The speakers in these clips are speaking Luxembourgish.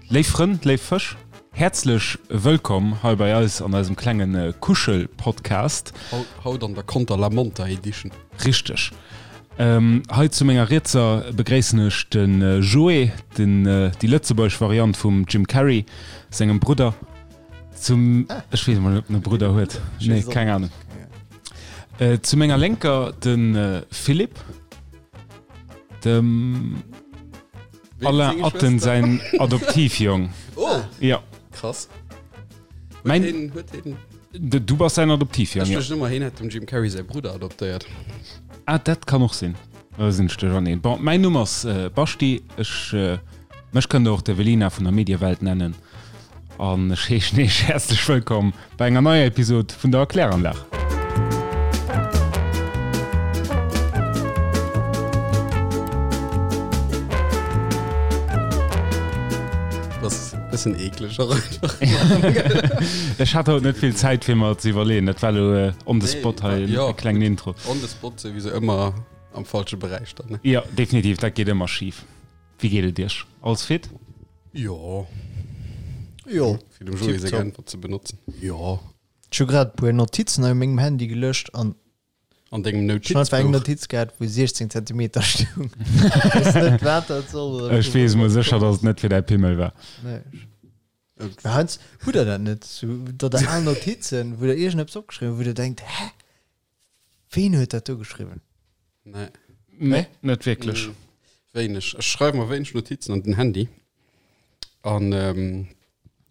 Léif Frënn, léif Fësch, häerzlech wëllkomm hei bei eis an eisem klenge Kuschel-Podcast. Haut an der Conter la Monta Edition. Richteg. Hei zu menger Rietser begréissen ech de Joé, den, déi lëtzebuergesch Variant vum Jim Carrey sengem Brudder. Zum, ech weess emol net, ob en e Brudder huet. Nee, keng Ahnung. Zu menger Lénker de Philippe, dem. Alain Atten säin Adoptivjong. Oh! Ja. Krass. Mein, Huet huet hien. Du bass säin Adoptivjong, ja. Ech duecht ëmmer, hien hätt dem Jim Carrey säi Brudder adoptéiert. Ah, dat kann och sinn. Da sinn ech duercherneen. Bon, mäin Numm ass Baschti. Ech, mech kënnt Der och d'Evelina vun der Mediewelt nennen. An ech heeschen Iech häerzlech wëllkomm bei enger neier Episod vun der Erkläranlag. Das bëssen eekleg och einfach. Ech hat haut net vill Zäit fir mer ze iwwerleeën. Dat war elo on the spot hei e klengen Intro. On the spot souwisou ëmmer am falsche Beräich dann, ne? Jo, definitiv, dat geet ëmmer schif. Wéi geet et Iech? Alles fit? Jo. Jo. Fir dem Joé seng Äntwert ze benotzen. Jo. Ech hu grad e puer Notizen hei op mengem Handy gelöscht an An dengem ech hunn einfach eng Notizbuch. Notiz gehat, wou 16 Zentimeter stoung. Ech weess net, wat dat soll oder Ech weess mol sécher, datt et net fir däi Pimmel war. Nee. Mä heiansdo hutt der dat net, sou datt der al Notizen, wou der iergendeppes opgeschriwwen hutt, wou der denkt, hä? Ween huet dat do geschriwwen? Nee. Nee, net wierklech. Mm, wéineg. Ech schreiwe mer wéineg Notizen an den Handy. An ähm,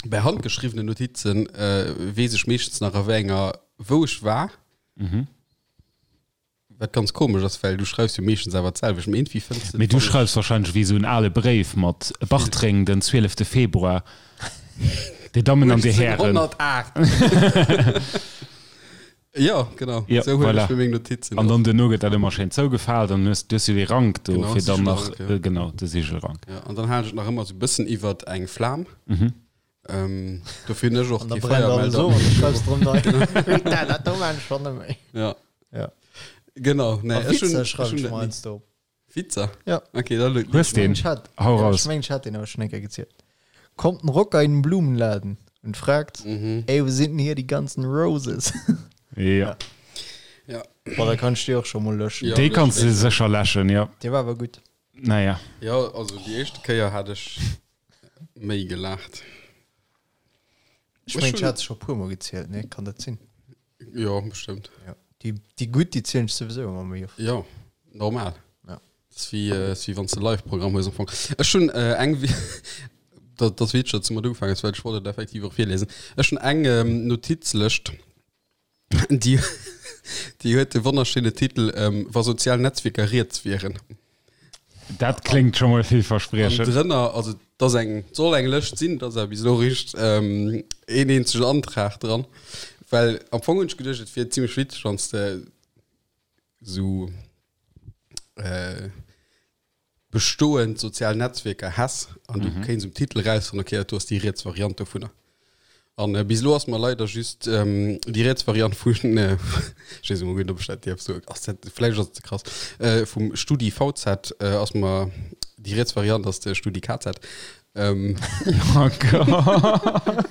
bei handgeschriwwenen Notizen äh, weess ech meeschtens nach a wéi enger, wou ech war. Mhm. Wat ganz komesch ass, well du schreifs jo meeschtens awer d'selwecht. Mee iergendwéi fënns de. Mee du schreifs wahrscheinlech wéi esou en ale Bréif mat Bartreng den 12. Februar, Dir Dammen an Dir Hären. 1808. Jo, genau. Ja, Sou huelen voilà. ech mir meng Notizen An och. dann duerno gëtt dat ëmmer schéin zougefaalt an hues, du hues jo dee Rank do, Genau, fir dann nach, Sigelrank, ja. genau, de Sigelrank. Ja, an dann halen ech et nach ëmmer sou e bëssen iwwert eng Flam. Mhm. Ähm, dofir hunn ech och An da kee brennt alles Feiermelder. of an du schreifs drëm nei. Putain, dat do maan ech schonn net méi. Ja. Ja. Genau, nee, A ech hunn, Witzer ech schreiwen hunn ech dat mer ni. heiansdo op. Witzer? Ja. Okay, da Hues lueg deen? Ech hat, Hau ja, raus. ech mengen, ech hat deen awer schon eng Kéier gezielt. Kommt ein Rocker in den Blumenladen und fragt, Mhm. ey, wo sind denn hier die ganzen Roses? Ja. Ja. Boah, da kann ech déi och scho mol löschen. Ja, Déi kanns de löschen. sécher läschen, ja. Dee war awer gutt. Naja. Ja, also déi éischte Kéier hat ech méi gelaacht. Ech mengen, ech hat se scho e puer Mol gezielt, ne? Kann dat sinn? Jo, bestëmmt. Ja. Déi, déi gutt, déi zielen ech souwisou ëmmer méi oft. Jo, normal. Ja. Dat ass wéi, äh, ass wéi wann s de Live-Programm hues am Fong. Ech hunn äh, eng, dat, dat ass witzeg, datt s du mat ugefaangen hues, well ech wollt et effektiv och virlesen. Ech hunn eng ähm, Notizlëscht, déi, déi huet de wonnerschéine Titel ähm, Wa sozial Netzwierker riets wieren. Dat kléngt scho mol An villverspriechend. drënner, also et ass eng, et soll eng Lëscht sinn, et ass awer bis elo eréischt een eenzegen Antrag dran. Well am Fong hunn ech geduecht, et wier zimmlech witzeg, wann s de esou bestoend sozial Netzwierker häss an du kéints um Titel erausfannen, okay, dat do ass déi riets Variant dovunner. An äh, bis elo ass mer leider just ähm, déi riets Variant vun äh, ech weess emol guer net, ob ech dat dierf soen, ass dat, vläicht ass et ze krass, äh, vum Studi VZ äh, ass mer déi riets Variant ass de Studi KZ. Ähm, Oh Gott.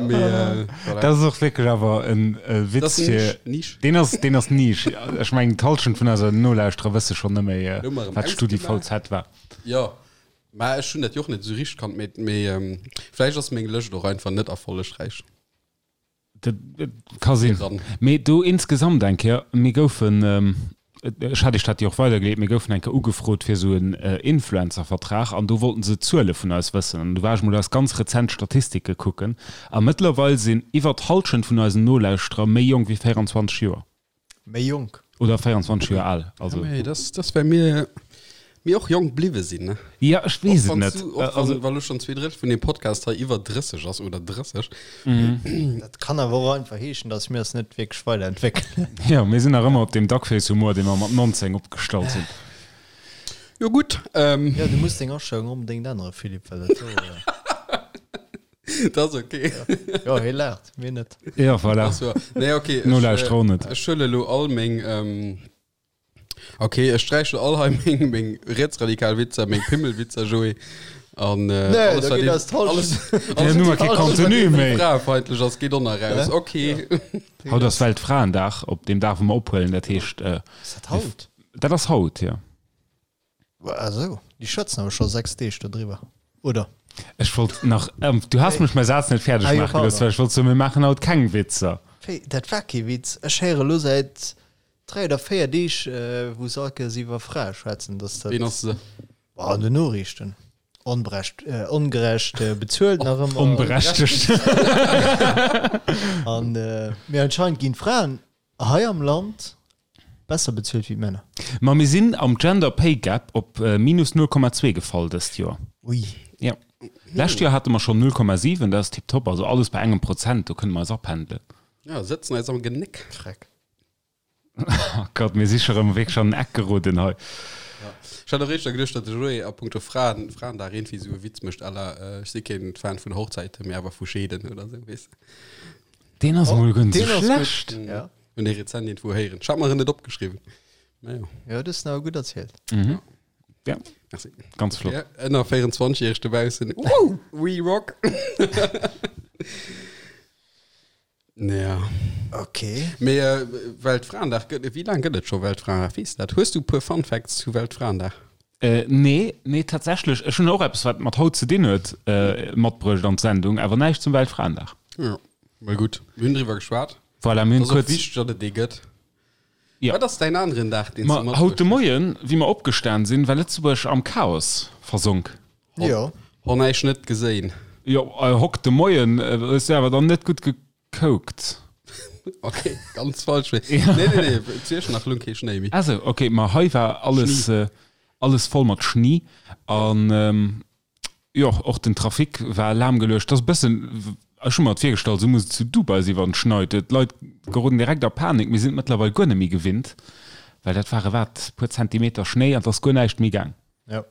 mee, äh, voilà. Dat ass och wierklech awer en äh, Dat Witz ass fir. Nisch, Nisch. Deen ass, deen ass Nisch. Ech mengen, d'Hallschent vun eiser Nolauschterer wësse schonn net méi, äh, Elo mer erëm wat Studi ausgemaach. VZ war. Jo, Mä ech hunn dat jo och net esou richteg kannt, mee mee vläicht ass meng Lëscht och einfach net erfollegräich. Dat ka sinn. Mee do insgesamt eng Kéier, mir goufen, ech hat Iech dat jo och weidergeleet, mir goufen eng Kéier ugefrot fir esou en Influencer-Vertrag an do wollten se Zuele vun eis wëssen. An du war ech mol eis ganz rezent Statistike kucken a mëttlerweil sinn iwwer d'Hallschent vun eisen Nolauschterer méi jonk wéi 24 Joer. Méi jonk. Oder 24 Joer al. Also. Ja, mee das, das well mir, mir och jonk bliwwe sinn, ne? Ja, ech weess Och et wann net. du, och wann, Also, well lo schonn 2/3 vun deem Podcast hei iwwer 30 ass oder 30. Dat kann awer och einfach heeschen, dass mir eis net wierklech weiderentwéckelen. ja, mir sinn nach ëmmer op deem Duckface-Humor, dee mer mat 19 opgestallt hunn. Jo gutt, ähm, Ja, du muss deng Astellung onbedéngt änneren, Philippe, well dat do. dat ass okay. Jo, hie laacht, mir net. Ja, voilà. Ach so. Nee, okay. Nolauschterer och net. Ech huele lo all meng, ähm, Ok, ech sträichen all hei meng, meng rietsradikal Witzer, meng Pimmelwitzer, Joé. An äh, Nee, alles, da wat geet een- eis d'Halschent. alles, Ja, alles, nu mar kee alles, wat Contenu irgendwie méi. fraefeindlech ass, geet och nach raus. Ok. Haut ass Weltfraendag, op deem Dag, wou mer ophuelen. Dat heescht, äh, Ass dat haut? dat ass haut, jo. Ah sou, déi schwätzen awer scho 6 Deeg dodriwwer, oder? Ech wollt nach, ähm, du has mech mäi Saz net fäerdeg Ah jo, maache gelooss, pardon. well ech wollt soen, mir maachen haut keng Witzer. Wéi, dat war kee Witz. Ech héiere lo säit 3 oder 4 Deeg, wou se all Kéiers iwwer Frae schwätzen, dass dat. Ween ass se? Boah, an den Noriichten. Onbrecht, ongerecht bezuelt nach ëmmer. Onberechtegt. An, mee anscheinend ginn d'Fraen hei am Land besser bezuelt wéi d'Männer. Ma mir sinn am Gender Pay Gap op minus 0,2 gefall dëst Joer. Ui. Jo. Lescht Joer hate mer schonn 0,7, dat ass tiptop. Also alles bei engem Prozent, do kënne mer eis apendelen. Ja, sëtzen eis am Genéck. Freck. Oh Gott, mir si scho rëm wierklech an den Eck geroden hei. Ja. Ech hat och éischter geduecht, datt de Joé a punkto Fraen, Fraendag iergendwéi esou e Witz mécht à la ech si keen Fan vun Hochzäiten, mee awer vu Scheeden oder esou, weess de. Deen ass emol guer net Deen esou ass gutt. schlecht. Ja. Hunn dee rezent iergendwou héieren. Ech hat mer en net opgeschriwwen. Mä jo. Jo, du hues en awer gutt erzielt. Mhm. Ja. Merci. Ganz flott. Ja, ënner 24 järeg dobaussen. Woo! We rock! Ja. Okay. Mee äh, Weltfraendag gëtt, wéi laang gëtt et scho Weltfraendag? Weess dat? Hues du e puer Fun Facts zu Weltfraendag? Äh, nee, nee, tatsächlech. Ech hunn och eppes, wat mat haut ze dinn huet, äh, matbruecht an d'Sendung, awer näischt zum Weltfraendag. Ja, mol gutt. Mir hunn driwwer geschwat. Voilà, mir hunn Ass och kuerz. wichteg, datt et dee gëtt. Ja. Wat ass däin aneren Dag, deen s du Ma haut de matbruecht hues? Moien, wéi mer opgestan sinn, war Lëtzebuerg am Chaos versonk. Jo. Hon eich net geséin. Jo, hock de Moien, hues du awer dann net gutt gekoukt. Ok, ganz falsch. Nee, nee, nee, zu Iechternach lung kee Schnéi méi. Ah sou, ok, ma hei war alles, alles voll mat Schni an jo, och den Trafic war lahmgeluecht. Dat ass e bëssen, ech hu mer et virgestallt, esou muss et zu Dubai sinn, wann et schneit. D'Leit geroden direkt a Panik. Mir sinn et mëttlerweil guer net méi gewinnt, well dat ware wat, puer Zentimeter Schnéi an et ass guer näischt méi gaang. Jo.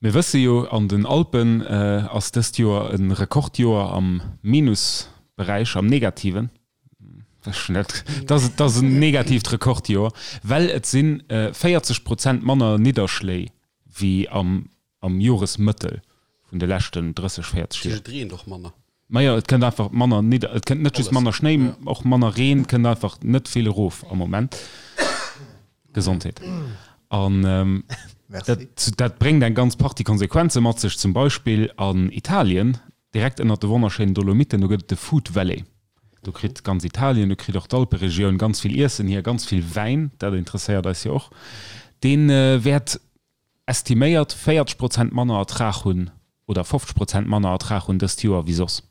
Mir wësse jo, an den Alpen ass dëst Joer e Rekordjoer am Minusberäich, am Negativen. Dat ass en negatiivt Rekordjoer, well et si 40 Prozent manner Nidderschléi wéi am Joresmëttel vun de leschten 30, 40 Joer. Et reent och manner. Majo, et kënnt einfach manner nidder, et kënnt net just manner Schnéi, och manner Reen, kënnt einfach net vill erof am Moment. Gesondheet. An dat, dat bréngt eng ganz Partie Konsequenze mat sech, zum Beispill an Italien, direkt ënnert de wonnerschéinen Dolomiten, do gëtt et de Food Valley. Do kritt ganz Italien, do kritt och d'Alperegioun ganz vill Iessen hier, ganz vill Wäin, dat interesséiert eis jo och. Dee wäert estiméiert 40 Prozent manner Ertrag hunn oder 50 Prozent manner Ertrag hunn dëst Joer wéi soss.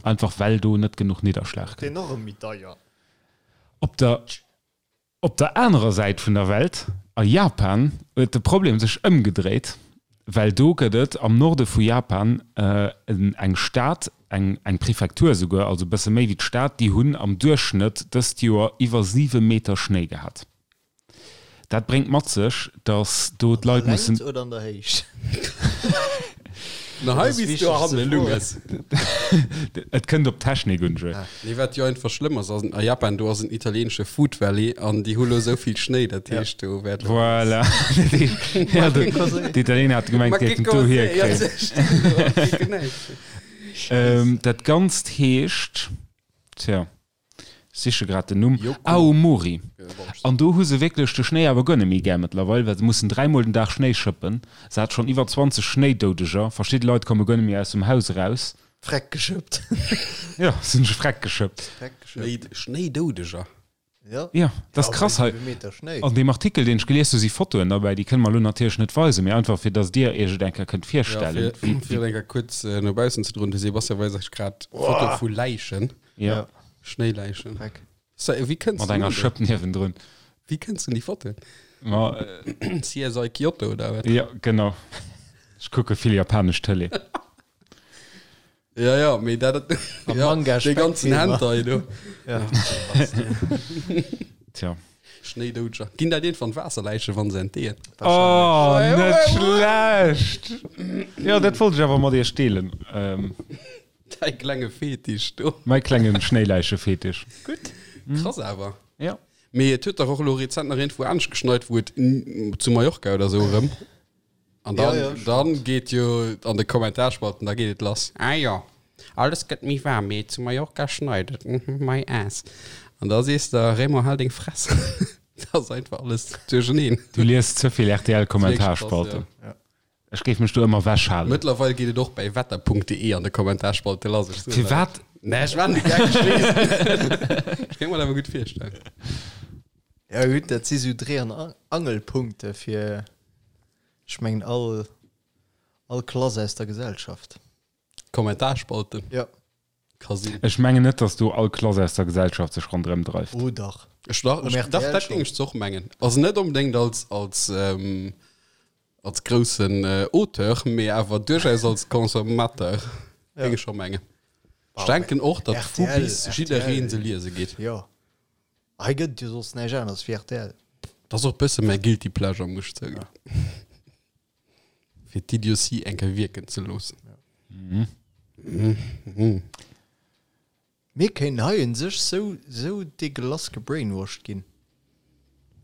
Einfach well do net genuch Nidderschlag kënnt. Deen och erëm méi deier. Op der op der anerer Säit vun der Welt, a Japan, huet de Problem sech ëmgedréit, well do gëtt et am Norde vu Japan eng Stad, eng eng Prefektur esouguer, also e bësse méi wéi d'Stad, déi hunn am Duerchschnëtt dëst Joer iwwer 7 Meter Schnéi gehat. Dat bréngt mat sech, datt do d'Leit mussen. An der Längt oder an der Héicht? Na hei bis du hanne Lunges. Et kënnt op d'Technik un, Joé. Nee, wat jo einfach schlëmm ass, ass a Japan, do ass en italieenesche Food Valley an déi hu lo esou vill Schnéi, dat heescht do wäert lo. Voilà. Ja, d'Italiener hate gemengt, déi hätten do hierkritt. Dat Ganzt heescht, tja. Siche grad den Numm, Aomori. An do hu se wierklech de Schnéi awer guer net méi gär mëttlerweil, well se mussen dräimol den Dag Schnéi schëppen. Se hat schonn iwwer 20 Schnéidoudeger. Verschidde Leit komme guer net méi aus dem Haus eraus. Freck geschëppt. Jo, se hunn sech freck geschëppt. Schnéidoudeger? Jo. Jo, dat ass krass hei. An deem Artikel, deen ech gelies hu, si Fotoen derbäi, déi kënne mer elo natierlech net weisen, mee einfach fir datt Dir Iech et eng Kéier kënnt virstellen. Jo, fir et eng Kéier kuerz no baussen ze droen, de Sebastian weist eis grad Fotoe vu Läichen. Ja. Schnéiläichen. Dreck. So, wéi kënns Mat enger Schëpp niewendrun. Wéi kënns du un déi Fotoen? Ma, äh, CSI Kyoto oder wat? Ja, genau. Ech kucke vill japanesch Tëlee. Ja, ja, mee dat, Am ja, Manga dee ganzen Speckfilmer. Hentai do. Ja. Tja. Schnéidoudscher. Ginn dat iergendwann Waasserläichen, wann se entdeeën? Oh, net schlecht! Jo, dat wollt ech awer mat iech deelen. Ähm. Däi klenge Fetisch do. Mäi klengen Schnéiläiche-Fetisch. Gutt. Krass awer. Ja. Mee et huet dach och elo rezent nach iergendwou anescht geschneit, wou et zu Mallorca oder sou erëm. An dann, Ja, ja, stimmt. dann geet jo an de Kommentarspalten, da geet et lass. Ah jo, alles gëtt méi waarm, mee zu Mallorca schneit et, mhm, my ass. An da sees de, Raymond, hal deng Fress. Dat ass einfach alles duercheneen. Du liest ze vill RTL-Kommentarspalten. Ja. Ech géif mech do ëmmer ewechhalen. Mëttlerweil geet et och bäi wetter.de an de Kommentarspalte lass. Ech soen Firwat? Nee, ech war net gär geschleest. Ech kéint mer dat awer gutt virstellen. Ja gutt, dat si sou Dréi an Angelpunkte fir, ech mengen, all, all Klass aus der Gesellschaft. Kommentarspalte? Ja. Ka sinn. Ech mengen net, datt do all Klass aus der Gesellschaft sech ronderëm dreift. Oh dach. Ech dach, Um ech, dach, RTL dat géing schonn. ech och mengen. Also net onbedéngt als, als, ähm, als groussen Auteur, mee awer duerchaus als Consommateur, géing ech scho mengen. Ech denken och, datt vu bis jidderee se liese geet. Jo, hei gëtt et jo soss näischt aneres wéi rtl. Dat ass och e bësse mäi guilty pleasure, muss ech zouginn. Fir d'Idiotie eng Kéier wierken ze loossen. Mir kéinten hei un sech sou sou deguelass gebrainwashed ginn,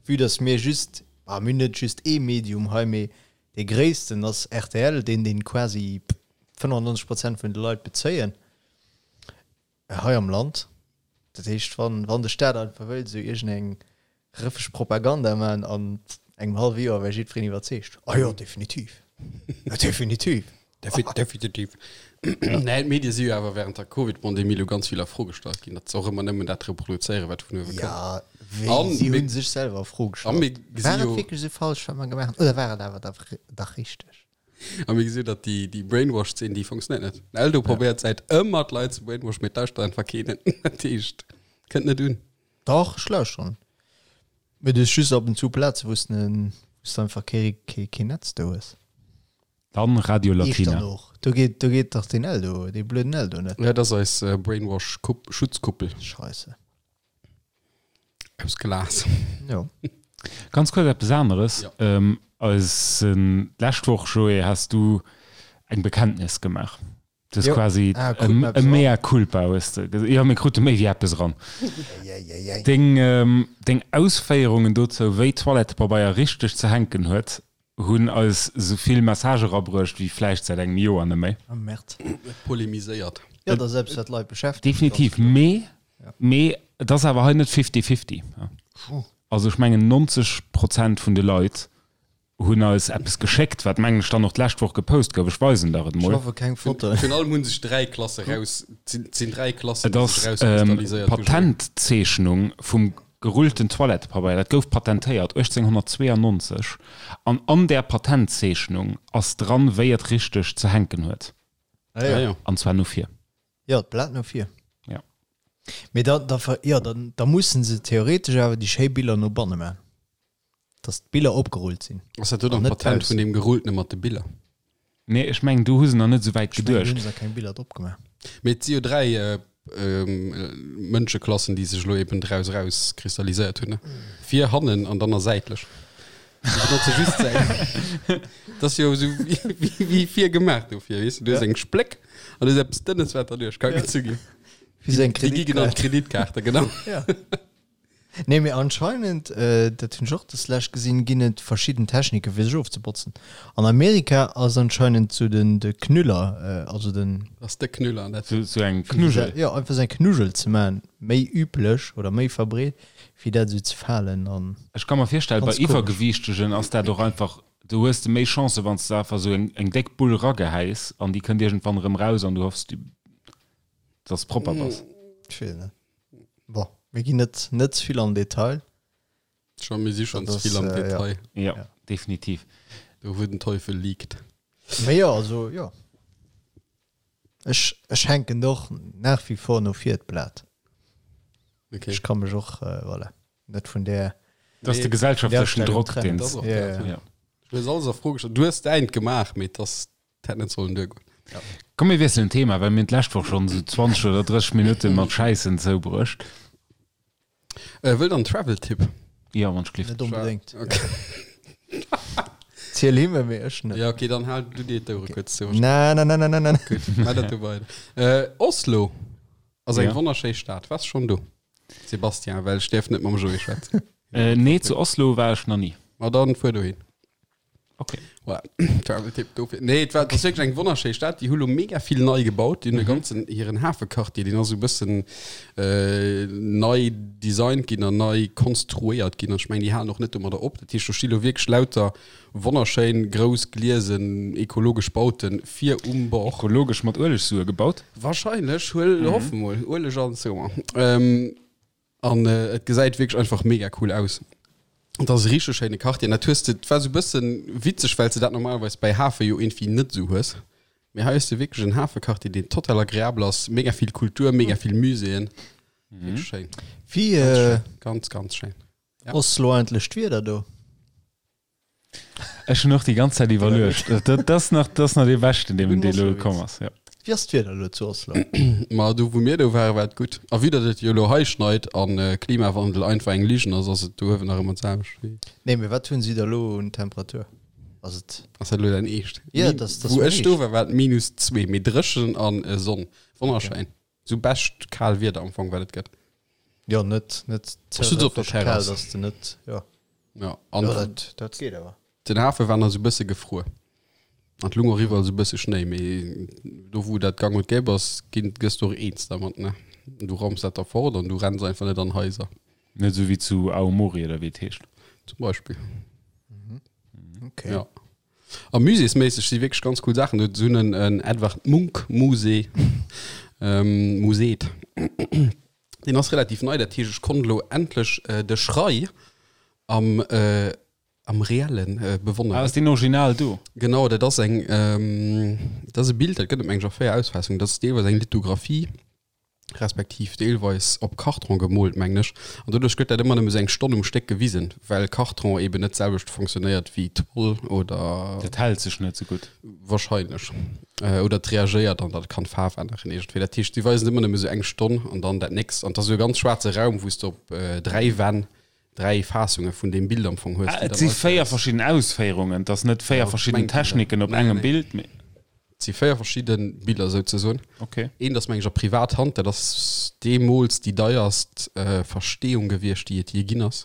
vue dass mir just, bah mir hunn net just ee Medium hei, mee dee gréissten ass rtl, deen deen quasi 95 Prozent vun de Leit bezéien hei am Land. Dat heescht wann wann de Staat einfach wëllt esou iergendeng Rëffeg Propaganda man an engem hallwe Joer wär jiddwereen iwwerzeegt. Ah jo, definitiv. Definitiv. Definitiv. Nee, d'Medie si jo awer während der Covid-Pandemie lo ganz vill a Fro gestallt ginn, datt se och ëmmer nëmmen dat reproduzéieren, wat vun uewe kënnt. Ja, wéi An si mir- hunn sech selwer a Fro A gestallt. mir gesi War et jo, wierklech esou falsch, wat mer gemaach hunn, oder war et awer da dach richteg? a mir gesi jo, datt déi, déi Brainwash-Zeen, déi funktionéiert net. Den Eldo probéiert säit ëmmer d'Leit ze brainwashen, mee et lauschtert einfach keen. Dat heescht, kënnt net un. Dach, ech lauschteren. Mee du hues just ab und zu Plaze, wou s de einfach kee, kee, kee Netz do hues. Dann Radio Latina. Echternach, do geet, do geet dach deen Eldo, dee blöden Eldo net. Ja, dat ass eis Brainwash-Schutzkuppel. Scheisse. Aus Glas. Jo. Ganz kuerz eppes aneres. Ja. Eis, d'lescht Woch, Joé, has du eng Bekenntnis gemaach. Du hues quasi e mea culpa hues de gesot. Jo, mir krute méi wéi eppes eran. Deng, deng Ausféierungen dozou, wéi Toilettepabeier richteg ze hänken huet, hunn eis esou vill Messagë erabruecht wéi vläicht säit engem Joer net méi. Oh Merde. Et polemiséiert. Jo, dat ass eppes, wat d'Leit beschäftegt. Definitiv. Mee, mee et ass awer hei net fifty-fifty. Also ech mengen 90 Prozent vun de Leit hunn eis eppes geschéckt, wat mengen ech dann och d'lescht Woch gepost gouf. Ech weisen der et Ech mol. hoffe keng Fotoen. Virun allem hu sech 3 Klasse raus, et sinn 3 Klassen, Et déi ass sech rauskristalliséiert hu. d'Patentzeechnung vum gerullten Toilettepabeier. Dat gouf patentéiert 1892 an an där Patentzeechnung ass dran, wéi et richteg ze hänken huet. Ah jo. Ah jo. An zwar no vir. Jo, d'Blat no vir. Ja. Mee da, da, jo, da, da mussen se theoretesch awer déi schéi Biller no banne man. Dass d'Biller opgerullt sinn. Ass dat do An dann net d'Patent baussen. vun deem Gerulltene mat de Biller? Nee, ech mengen, do hu se nach net esou wäit Ech mengen, do geduecht. hunn se keng Biller drop gemaach. Mee et si jo 3 Mënscheklassen, déi sech elo eben draus erauskristalliséiert hunn, ne? Vir, hannen an dann a säitlech. Déi benotze just d'Säit. Dat ass jo esou wéi, wéi vir gemaach dofir, weess de? Du hues eng Spléck an du hues eppes Dënnes, wat derduerch ka gezu ginn. Wéi sou eng Déi gi genannt Kreditkaart. Kreditkaarte, genau. Ja. Nee, mee anscheinend, dat hunn ech och des lescht gesinn, ginn et verschidden Techniken fir sech ofzebotzen. An Amerika ass anscheinend sou den de Knüller, also den. Ass de Knüller dat? Sou sou eng Knuggel. Jo, einfach sou eng Knuggel ze maachen, méi üblech oder méi verbreet, wéi dat esou ze falen an. Ech ka mer virstellen, bei Ganz komesch. Iwwergewiichtegen ass dat och einfach, do hues de méi Chancen, wann s de einfach sou eng eng déck Bull ragehäis an déi kënnt iergendwann erëm raus an du hoffs, dass propper bass. Ech weess net. Bon, mir ginn net net ze vill an den Detail. Scho, mir si schonn Dat ze vill am ass, äh, ja. Detail. Ja, Ja. definitiv. Do wou den Teufel liegt. Mee jo, also jo. Ech ech hänken och nach wie vor no vir d'Blat. Okay. Ech ka mech och, äh, voilà, net vun där Dat ass de Nee, gesellschaftlechen Astellung Drock, trennen. deen Dat ass och Ja, dat, ja. ja. Du hues alles a Fro gestallt. Du hues däint gemaach, mee et ass, et hätt net sollen duergoen. Komm mir wiesselen d'Thema, well mir hunn d'lescht Woch schonn esou 20 oder 30 Minutte mat Schäissen zoubruecht. Äh, wëllt der en Travel-Tipp? Jo, wann ech gelift. Net onbedéngt. Okay. Ziel him, mee ech net. Ja, okay, dann hal du dir d'Ouere kuerz zou. Na, na, na, na, na, na. Gutt, maach dat du weider. Äh, Oslo ass eng Ja. wonnerschéi Stad. Waars schonn do? Sébastien, well ech däerf net mam Joé schwätzen. Äh, nee, zu Oslo war ech nach ni. Ma dann fuer dohin. Okay. Voilà. Travel-Tipp dofir. Nee, et war, et ass wierklech eng wonnerschéi Stad. Déi hu lo mega vill nei gebaut. Déi hunn e ganzen, hiren Hafequartier, deen ass esou e bëssen äh, nei designt ginn an nei konstruéiert ginn. An ech mengen, déi halen och net domadder op. Dat heescht, do sti lo wierklech lauter wonnerschéin, grouss, gliesen, ekologesch Bauten vir um Bord. Ekologesch mat Uelegsue gebaut? Wahrscheinlech, huel, hoffe mol. Ueleg an sou. Ähm, An et gesäit wierklech einfach mega cool aus. Et ass e richteg schéine Quartier. An dat hues de, et war sou e bëssen witzeg, well s de dat normalerweis bäi Hafe jo iergendwéi net esou hues. Mee hei hues de wierklech en Hafequartier, deen total agreabel ass. Mega vill Kultur, mega vill Muséeën. Wierklech schéin. Wéi Ganz schéin. Ganz, ganz schéin. Ja. Oslo eigentlech d'Wieder do? Ech hunn och déi ganz Zäit iwwerluecht. Dat ass nach, dat ass nach dee beschten, deen dee elo komm ass, jo. Wéi ass d'Wieder elo zu Oslo? Ma do wou mir do waren, war et gutt. A vue datt et jo elo hei schneit a Klimawandel einfach eng Ligen ass, ass et do uewen nach ëmmer d'selwecht wéi. Nee, mee wat hunn si da elo un Temperatur? Ass et. Ass dat elo däin Eescht? Jo, dat ass Wou mäin ech do Eescht. war, war et minus zwee, mee dréchen an Sonn. Wonnerschéin. Sou bescht kal Wieder am Fong wat et gëtt. Jo net net ze Ech sutz op der kal, Terrass. dass de net jo. Ja an Jo dat dat geet awer. Den Hafe war nach sou bësse gefruer an et lung och iwwerall sou bësse Schnéi, mee do wou dat gang und gäbe ass, ginn gëss de och eens dermat ne. Du raums dat da fort an du renns einfach net an Haiser. Net sou wéi zu Aomori oder wéi et heescht. Zum Beispill. Okay. Ja. A muséesméisseg si wierklech ganz cool Saachen do. Se hunn en en Edvard Munch Musée, Museet. Deen ass relativ nei, dat heescht ech konnt elo endlech de Schrei am am Reellen bewonneren. Ah, ass deen original do? Genau, dat ass eng, dat ass e Bild, dat gëtt et meng ech a 4 Ausfaassungen. Dat ass deelweis eng Lithografie. respektiv deelweis op Karton gemoolt, mengen ech, an doduerch gëtt dat ëmmer nëmme sou eng Stonn um Stéck gewisen, well Karton eben net d'selwecht fonctionnéiert wéi Toll oder. Dat hält sech net sou gutt. Wahrscheinlech. Oder et reagéiert an dat kann d'Faarf änneren iergendwéi. Dat heescht, si weisen et ëmmer nëmme sou eng Stonn an dann dat nächst. An et ass esou e ganz schwaarze Raum, wou s de op 3 Wänn 3 Faassunge vun deem Bild am Fong hues. Ah, et si 4 verschidden Ausféierungen, et ass net 4 verschidden Techniken op engem Bild, mee. Et si 4 verschidde Biller souzesoen. Okay. Eent ass meng ech a Privathand, dat ass deemools déi deierst Versteeung gewiescht, déi et jee ginn ass.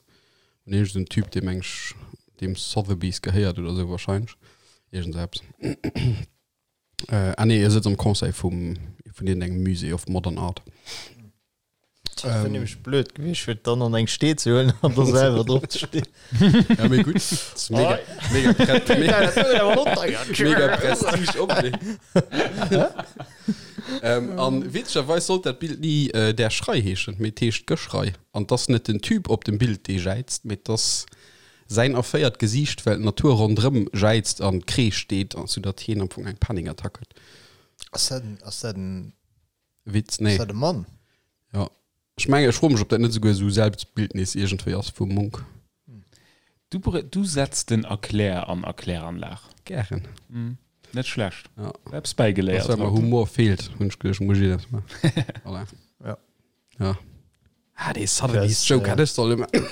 Un iergend en Typ, dee meng ech deem Sotheby's gehéiert oder esou wahrscheinlech. Iergend esou eppes. Ah nee, e sëtzt am Conseil vum, vun iergendengem Musée of Modern Art. Dat wär nämlech blöd gewiescht, fir dann an eng Stee ze huelen an da selwer drop ze stinn. Ja, mee gutt. Dat ass mega, mega, pre mega, mega Prestige-Objet. ähm, an witzegerweis sollt dat Bild ni äh, Der Schrei heeschen, mee et heescht Geschrei. An 't ass net den Typ op dem Bild, dee jäizt, mee 't ass säin erféiert Gesiicht, well d'Natur ronderëm jäizt an Kreesch deet, soudatt hien am Fong eng Panikattack huet. Ass dat en, ass dat en Witz, nee. Ass dat e Mann? Ja. Ech mengen, ech froe mech, ob dat net esouguer esou Selbstbildnis iergendwéi ass vum Munch. Du, du setz den Erklär an Erkläranlag. Gären. Mm, net schlecht. Ja. Eppes bäigeléiert. Well mer Humor feelt, hunn ech geduecht, muss ech dat maachen. Voilà. Ja. Ja. Ah, dee Sotheby's Joke hätt ech solle maachen.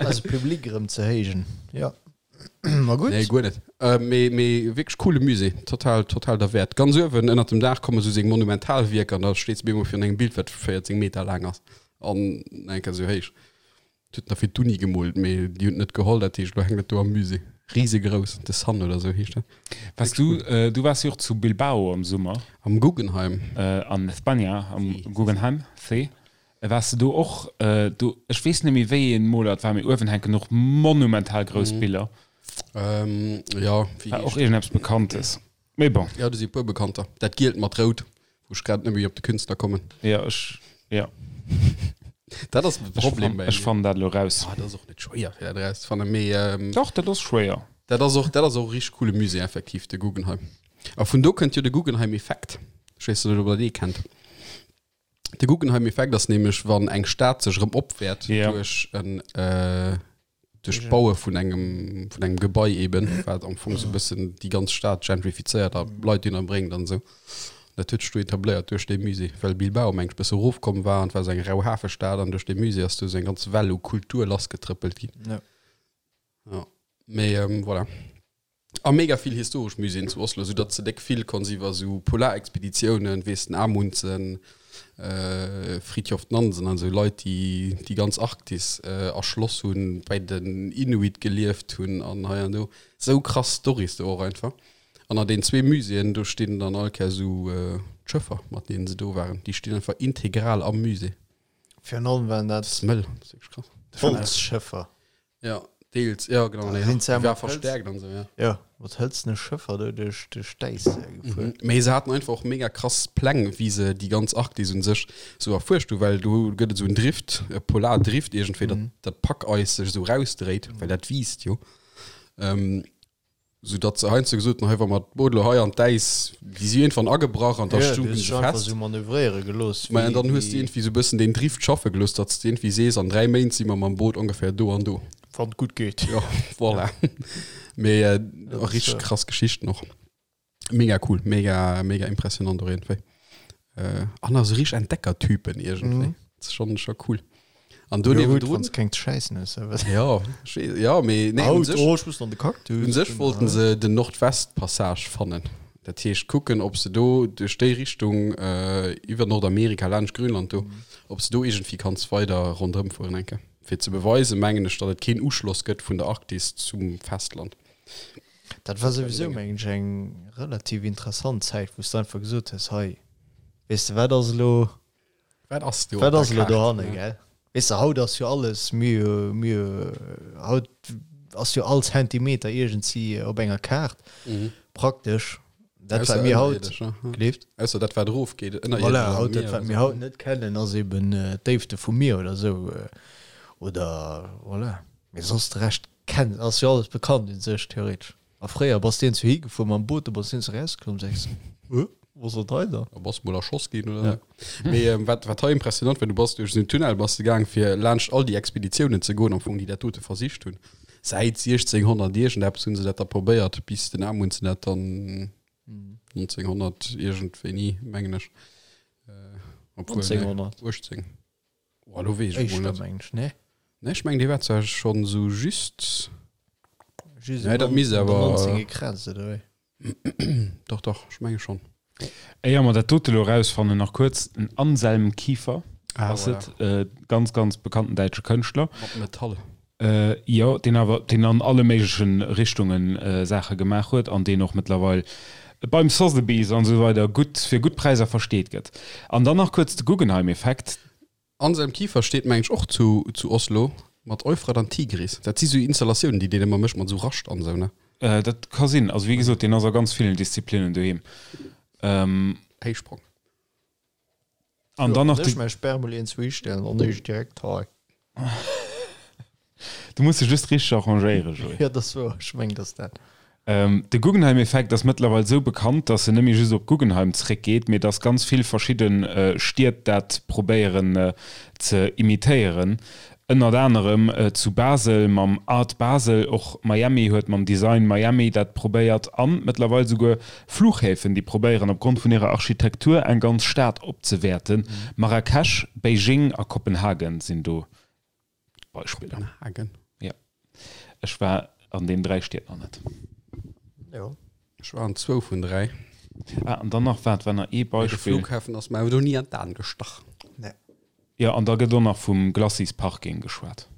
Eise Public erëm ze héijen. Ja. Ma gutt. Nee, guer net. Äh, mee, mee wierklech coole Musée. Total, total derwäert. Ganz uewen ënnert dem Daach komme sou seng Monumentalwierker an da steet se bemol virun engem Bild, wat 14 Meter laang ass an eng Kéier sou héich. Et huet nach fir d'Uni gemoolt, mee déi hunn et net geholl, dat heescht, elo hänkt et do am Musée. Risegrouss, The Sun oder sou heescht dat. Wars du, äh, du wars jo och zu Bilbao am Summer. Am Guggenheim. Äh, an Espanja, am Guggenheim, see. Wars de do och do? Ech weess net méi wéi een Moler et war, mee uewen hänken och monumental grouss Biller. Ähm, ja, wéi War och iergendeppes Bekanntes. Mee bon. Ja, do si e puer Bekannter. Dat gielt mat rout, wou ech grad net méi op de Künstler kommen. Ja, ech, ja. Dat ass de Problem bei Ech fannen dat elo raus. Ah, dat ass och net schwéier, fir dat erauszefannen, mee. Ähm, Dach, dat ass schwéier. Dat ass och, dat ass och e richteg coole Musée, effektiv, de Guggenheim. A vun do kënnt jo de Guggenheim-Effekt. Ech weess net, ob der dee kennt. De Guggenheim-Effekt ass nämlech, wann eng Stad sech erëm opwäert Ja. duerch en äh, duerch d'Baue vun engem vun engem Gebai eben, wat am Fong sou e bëssen déi ganz Stad gentrifizéiert a Leit dohinner bréngt an esou. Dat huet sech do etabléiert duerch dee Musée, well Bilbao meng ech bësse erofkomm war an et war sou eng rau Hafestad an duerch dee Musée ass do sou eng ganz Well u Kultur lassgetrëppelt ginn. Ja. Ja. Mee ähm, voilà. A mega vill historesch Muséeën zu Oslo, sou datt s de déck vill konns iwwer sou Polarexpeditiounen, weess den Amundsen. Fridtjof Nansen an esou Leit, déi déi ganz Arktis erschloss hunn, bei den Inuit gelieft hunn an hei an do. Sou krass Storys do och einfach. An an den zwee Muséeën, do stinn dann all Kéier esou d'Schëffer, mat deenen se do waren. Déi stinn einfach integral am Musée. Virun allem waren dat Dat ass mëll, dat ass wierklech krass. Holzschëffer. Ja, deels, ja genau, nee, Sinn se war mat Hëlz- verstärkt an esou, ja. Ja, mat hëlzene Schëffer do duerch duerch d'Äis gefuer. Mee se haten einfach och mega krass Pläng, wéi se déi ganz Arktis un sech sou erfuerscht hu, well do gëtt et sou en Drift, e Polardrift iergendwéi, datt dat Packeis sech esou rausdréit, well dat wiisst jo. Sou datt se heiansdo gesot hunn, hei wa mer d'Boot elo hei an d'Äis, déi si iergendwann agebrach an da Ja, du stoungen hues se dech einfach fest. sou manövréiere gelooss, Mä wéi, dann hues de wéi. iergendwéi sou e bëssen deen Drift schaffe gelooss, datt s de iergendwéi sees, an 3 Méint si mer mam Boot ongeféier do an do. Wann et gutt geet. Jo, voilà. Mee Dat ass, richteg krass Geschichten och. Mega cool, mega, mega impressionant och iergendwéi. An also richteg Entdeckertypen iergendwéi. Mhm. Dat ass schonn, scho cool. An do Jo, gutt, niewendrun. wann s keng ze schäissen hues, da wat. Ja, ech weess, ja, mee nee, un Haut, sech, oh, ech muss an de Cactus. un sech wollten se den Nordwestpassage fannen. Dat heescht kucken, ob se do duerch déi Richtung iwwer Nordamerika laanscht Grönland do, ob se do iergendwéi kanns weider ronderëm fueren eng Kéier. Fir ze beweisen, mengen ech, datt et keen Uschloss gëtt vun der Arktis zum Festland. Dat war souwisou, mengen ech, eng relativ interessant Zäit, wou s de einfach gesot hues, hei, weess de, wat ass elo, Wat ass do wat op ass der elo Kaart? dohanne, gell? Weess de, haut ass jo alles, mir, mir, haut ass jo all Zentimeter iergendsi op enger Kaart, praktesch. Dat, Ausser wat mir haut, ënnerierdesch, ne? gleeft. Ausser dat, wat erofgeet, ënnerierdesch Voilà, am haut dat, Mier wat oder mir sou. haut net kennen, ass eben d'Déifte vum Mier oder sou, oder voilà. Mee soss de Rescht Kennt, ass jo alles bekannt un sech, theoretesch. A fréier bass de iergendwou higefuer mam Boot, du bass iergendwou erauskomm, sees, Huh, wou ass dat hei dann? Da bass mol erschoss ginn oder sou. Mee wat, wat hei impressionant war, du bass duerch esou en Tunnel bass de gaang, fir laanscht all déi Expeditiounen ze goen, am Fong, déi dat dote versicht hunn. Säit 1600 iergendeppes hu se dat da probéiert, bis den Amundsen dat dann 1900 iergendwéini, mengen ech, obwuel, nee, 1900. 18. Oh, lo weess ech mol Éischter net. mengen ech, nee? Nee, ech mengen, dee war zwar schonn sou just. Just Nee, dat misst awer. 19 gekratzt, oder wéi? Dach, dach, ech menge schonn. Éier mer dat dote lo erausfannen, nach kuerz, den Anselm Kiefer Ah, ass voilà. et, äh, ganz, ganz bekannten däitsche Kënschtler. Mat Metall. Äh, jo, deen awer, deen an alle méiglechen Richtungen äh, Saache gemaach huet an deen och mëttlerweil beim Sotheby's an esou weider gutt, fir gutt Präisser versteet gëtt. An dann nach kuerz de Guggenheim-Effekt. Anselm Kiefer steet mengen ech och zu zu Oslo mat Euphrat an Tigris. Dat si sou Installatiounen déi deen ëmmer mécht mat sou Rascht an sou ne? Dat ka sinn. Also wéi gesot, deen ass a ganz villen Disziplinnen doheem. Héichsprong. An dann nach Ech de. mäi Sperrmüll iergendwou histellen an ech direkt hei. Du muss dech just richteg arrangéieren, Joé. Jo, dat ass wouer. Ech mengen, dat ass dat. De Guggenheim-Effekt ass mëttlerweil esou bekannt, datt en net méi just op Guggenheim zréckgeet, mee datt ganz vill verschidde Stied dat probéieren ze imitéieren. Ënnert anerem zu Basel mam Art Basel, och Miami huet mam Design Miami dat probéiert an mëttlerweil souguer Flughäfen, déi probéieren opgrond vun hirer Architektur eng ganz Stad opzewäerten. Marrakesch, Beijing a Kopenhagen sinn do Beispiller. Kopenhagen? Jo. Ech war an den 3 Stied nach net. Jo. Ech war an zwou vun 3. Ah, an dann nach, waart, war nach ee Mee de Beispill. Flughafen ass mer awer do ni an d'Aen gestach. Nee. Jo, an da gëtt och nach vum Glacis Parking geschwat.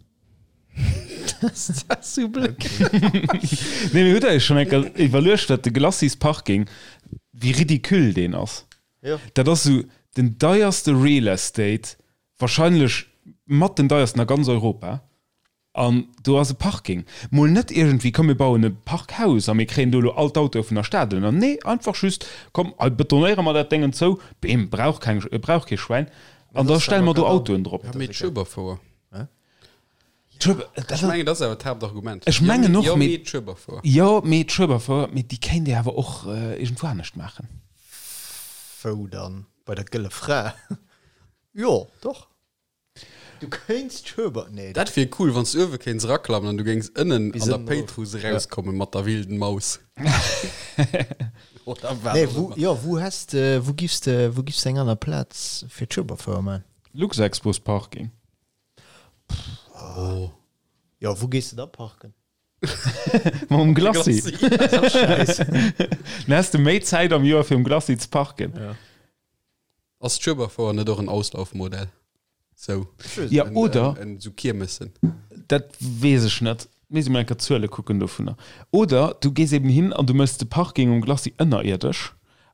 Dat ass sou blöd. Nee, mee hutt der iech schonn eng Kéier iwwerluecht, wat de Glacis Parking, wéi ridicule deen ass? Jo. Dat ass sou den deierste Real Estate Wahrscheinlech mat den deiersten a ganz Europa. An do ass e Parking. Mol net iergendwéi, komm mir bauen e Parkhaus a mir kréien do elo all d'Autoe vun der Stad ënner. Nee, einfach just, komm hei betonéiere mer dat Déngen zou, beem, brauch keng, brauch kee Schwäin, an da stelle mer do Autoen drop. Ja, mee d'Schueberfouer. Ech Ech mengen, dat ass awer d'Haaptargument. Ech mengen och, Jo, mee. mee d'Schueberfouer. Jo, mee d'Schueberfouer, mee déi kéint Dir awer och iergendwou anescht maachen. Wou dann? Bei der Gëlle Fra? Jo, doch. Du kéints d'Schueber, nee. Dat wier cool, wann s du uewe kéints eraklammen an du géings ënnen Bis an der ënnen erof. Péitruss erauskommen mat der wilden Maus. Oder wat Nee, och wou, ëmmer. jo, wou häss de, wou giffs de, wou giffs de eng aner Plaz fir d'Schueberfouer man? Luxexpo's Parking. Oh. Jo, wou gees de da parken? Mam Glacis. Glacis. Dann häss de méi Zäit am Joer fir um Glacis ze parken. Ja. Ass d'Schueberfouer net och en Auslaufmodell? Sou. Ja, oder. En, sou Kiermessen. Dat weess ech net. Misst ee mol eng Kéier d'Zuele kucken dovunner. Oder du gees eben hin an du méchs de Parking um Glacis ënnerierdesch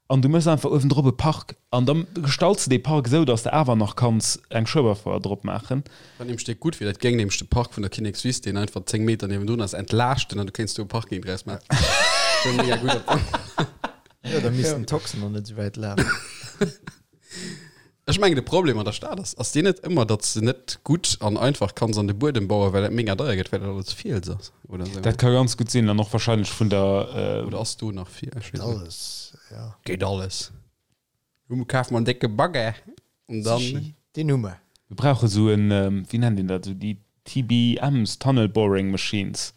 an du méchs einfach uewendrop e Park an da gestalts de dee Park esou, datt s de awer nach kanns eng Schueberfouer drop maachen. Wat nämlech déck gutt wier, dat géing nämlech de Park vun der Kinnekswiss, deen einfach 10 Meter niewendrun ass, entlaaschten an du kéints do e Parking draus maachen. Dat wär mega gutt. Jo, da missten d'Toxen och net esou wäit lafen. Ech mengen de Problem an der Stad ass, ass deen net ëmmer, datt s de net gutt an einfach kanns an de Buedem bauen, well dat mega deier gëtt, well dat alles Fiels ass oder esou? Dat ka ganz gutt sinn an och wahrscheinlech vun der. Oder ass do nach Fiels? Ech weess net. Alles, ja. Geet alles. Hu kafe mer en décke Bagger an dann. Sichi, deen hu mer. Mir brauche sou en, wéi nennt een dat, sou déi TBMs, Tunnel Boring Machines.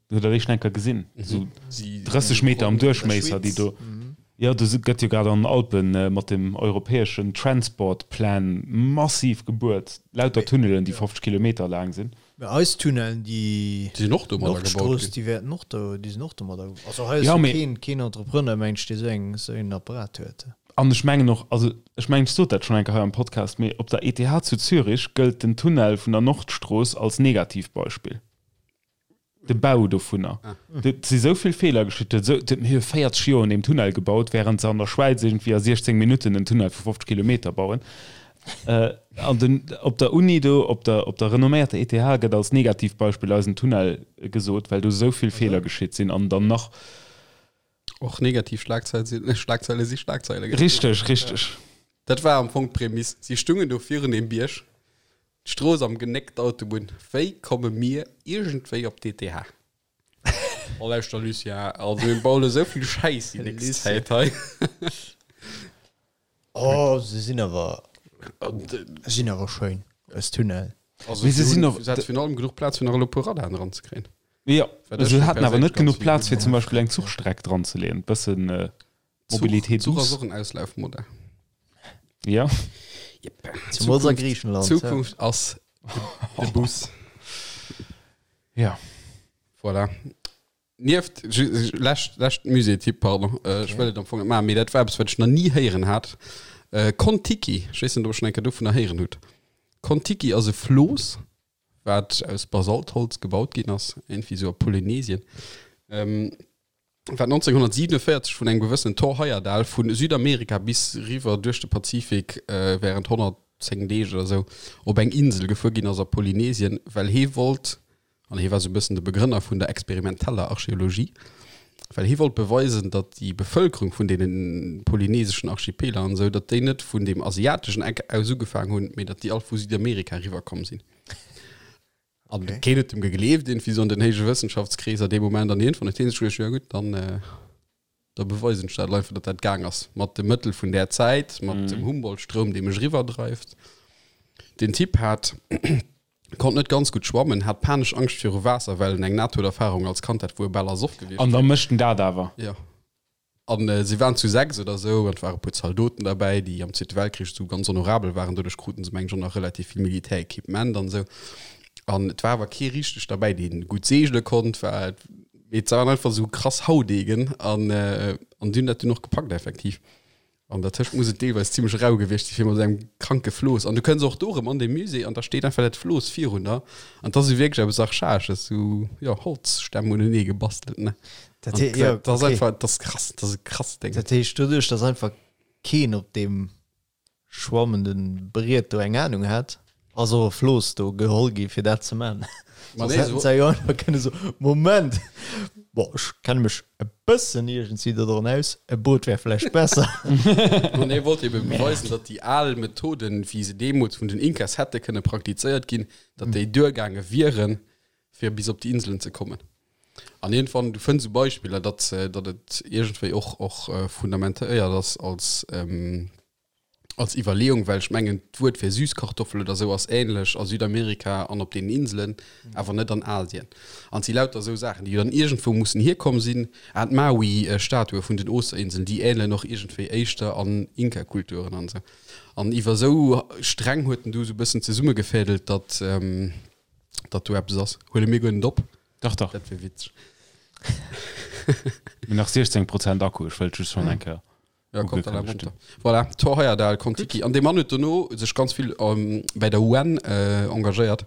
Hutt der déi schonn eng Kéier gesinn? Esou 30 Meter am Duerchméisser, déi do. Jo, do gëtt jo grad an den Alpen mat dem europäeschen Transport Plan massiv gebuert. Lauter Tunnelen, déi 50 Kilometer laang sinn. Mä eis Tunnelen, déi sinn och domadder gebaut Nordstrooss, déi wäerten och do, déi sinn och domadder. Also hei ass jo keen, keen Entrepreneur, mengen ech, dee esou eng, esou een Apparat huet. An ech mengen och, also ech mengen, ech sot dat schonn eng Kéier hei am Podcast, mee op der ETH zu Zürich gëllt den Tunnel vun der Nordstrooss als Negativbeispill. De Bau dovunner. Et si sou vill Feeler geschitt. Et huet mir hu 40 Joer un deem Tunnel gebaut, wärend se an der Schwäiz iergendwéi a 16 Minutten en Tunnel vu 50 Kilometer bauen. An den, op der Uni do, op der, op der renomméierter ETH gëtt als Negativbeispill eisen Tunnel gesot, well do sou vill Feeler geschitt sinn an dann nach. Och negativ Schlagzeile sinn, Schlagzeile si Schlagzeile. Richteg, richteg. Dat war am Fong d'Prämiss. Si stungen do virun deem Bierg. D'Strooss am Genéck, d'Autobunn, wéi komme mir iergendwéi op d'ETH? Oh lauschter Lucien, also mir bauen esou vill Schäiss déi nächst Zäit hei. Oh se sinn awer, sinn awer schéin, eis Tunnel. Also Mee se sinn och. Se hat virun allem genuch Plaz fir nach elo e puer Radaren eranzekréien. Jo, se haten awer net genuch Plaz fir zum Beispill eng Zuchstreck dranzeleeën, bëssen. Mobilité douce. Zuch ass och en Auslaufmodell. Ja. Yep. Zumols a Griichenland. Zukunft ass de Bus. Ja. Voilà. Nieft, lescht, lescht Musée-Tipp, pardon, okay. ech wëll et am Fong net maachen, mee dat war eppes, wat ech nach ni héieren hat. Kon-Tiki, ech weess net, ob der schonn eng Kéier dovunner héieren hutt. Kon-Tiki ass e Flooss, wat aus Basaltholz gebaut ginn ass, iergendwéi esou a Polynesien. Wat 1947 vun engem gewëssenen Thor Heyerdahl vu Südamerika bis riwwer duerch de Pazifik wärend 110 Deeg oder sou op eng Insel gefuer ginn ass a Polynesien, well hee wollt, an hee war sou e bëssen de Begrënner vun der experimenteller Archeologie, well hee wollt beweisen, datt déi Bevëlkerung vun deene polyneseschen Archipeler an esou, datt déi net vun deem asiateschen Eck aus ugefaang hunn, mee datt déi all vu Südamerika riwwerkomm sinn. An okay. keen huet dem gegleeft, irgendwie so an den héije Wëssenschaftskreeser dee Moment an iergendwann huet hien sech geduecht, ja gutt, dann, äh, da beweisen ech dat einfach, datt dat gaang ass. Mat de Mëttel vun där Zäit, mat mm. dem Humboldt-Stroum, dee mech riwwerdreift. Den Typ hat konnt net ganz gutt schwammen, hat panesch Angscht viru Waasser, well en eng Nahtoderfahrung als Kand hat, wou e bal ersoff gewiescht An da mécht en dat awer. Ja. An si waren zu 6 oder esou, an et ware puer Zaldoten derbäi, déi am Zweete Weltkrich esou ganz honorabel waren. Doduerch kruten se, mengen ech, och nach relativ vill Militärequipement an esou. An et war awer kee richteg derbäi, dee gutt seegele konnt. War, mee et waren einfach esou krass Haudegen an, an déi hunn dat dunn och gepackt effektiv. An dertëscht muss et deelweis zimmlech rau gewiescht si fir mat esou engem kranke Flooss. An du kënns och do erëm an dee Musée an da steet einfach dat Flooss virun der. An 't ass esou wierklech eppes Archaesches, esou, jo, Holzstämm unenee gebastelt, ne? Dat hee, jo, Dat ass einfach, dat ass krass, dat ass e krasst Déng. Dat heescht, doduerch, dass einfach keen op deem schwammende Briet do eng Anung hat, ass och e Flooss do geholl gi fir dat ze man. Ma Soss nee, hätten so- se jo einfach kënne soen, Moment, bon, ech kenne mech e bëssen iergendwéi dodran aus, e Boot wär vläicht besser. Ma nee, wollt ebe beweisen, datt déi al Methoden, wéi se deemools vun den Inkas hätte kënne praktizéiert ginn, datt déi duergaange wieren, fir bis op déi Inselen ze kommen. An iergendwann, du fënns esou Beispiller, datt, datt et iergendwéi och, och fundamentéiert ass als, als Iwwerleeung, well ech mengen, d'Wuert fir Süßkartoffel oder esou ass ähnlech a Südamerika an op deenen Inselen, awer net an Asien. An et si lauter esou Saachen, déi dann iergendwou mussen hierkomm sinn. Ah, d'Maui-Statue vun den Osterinseln, déi ähnelen och iergendwéi éischter an Inka-Kulturen an esou. An iwwer esou Sträng huet en du esou e bëssen zesummegefädelt, datt, datt do eppes ass. Huele mir guer net op. Dach, dach. Dat wier witzeg. Mir nach 16 Prozent Akku, ech wëllt just schonn eng Kéier. Ja, kommt da runter. Voilà, Thor Heyerdahl, Kon-Tiki. An dee Mann huet dono sech ganz vill ähm, bei der UN äh, engagéiert.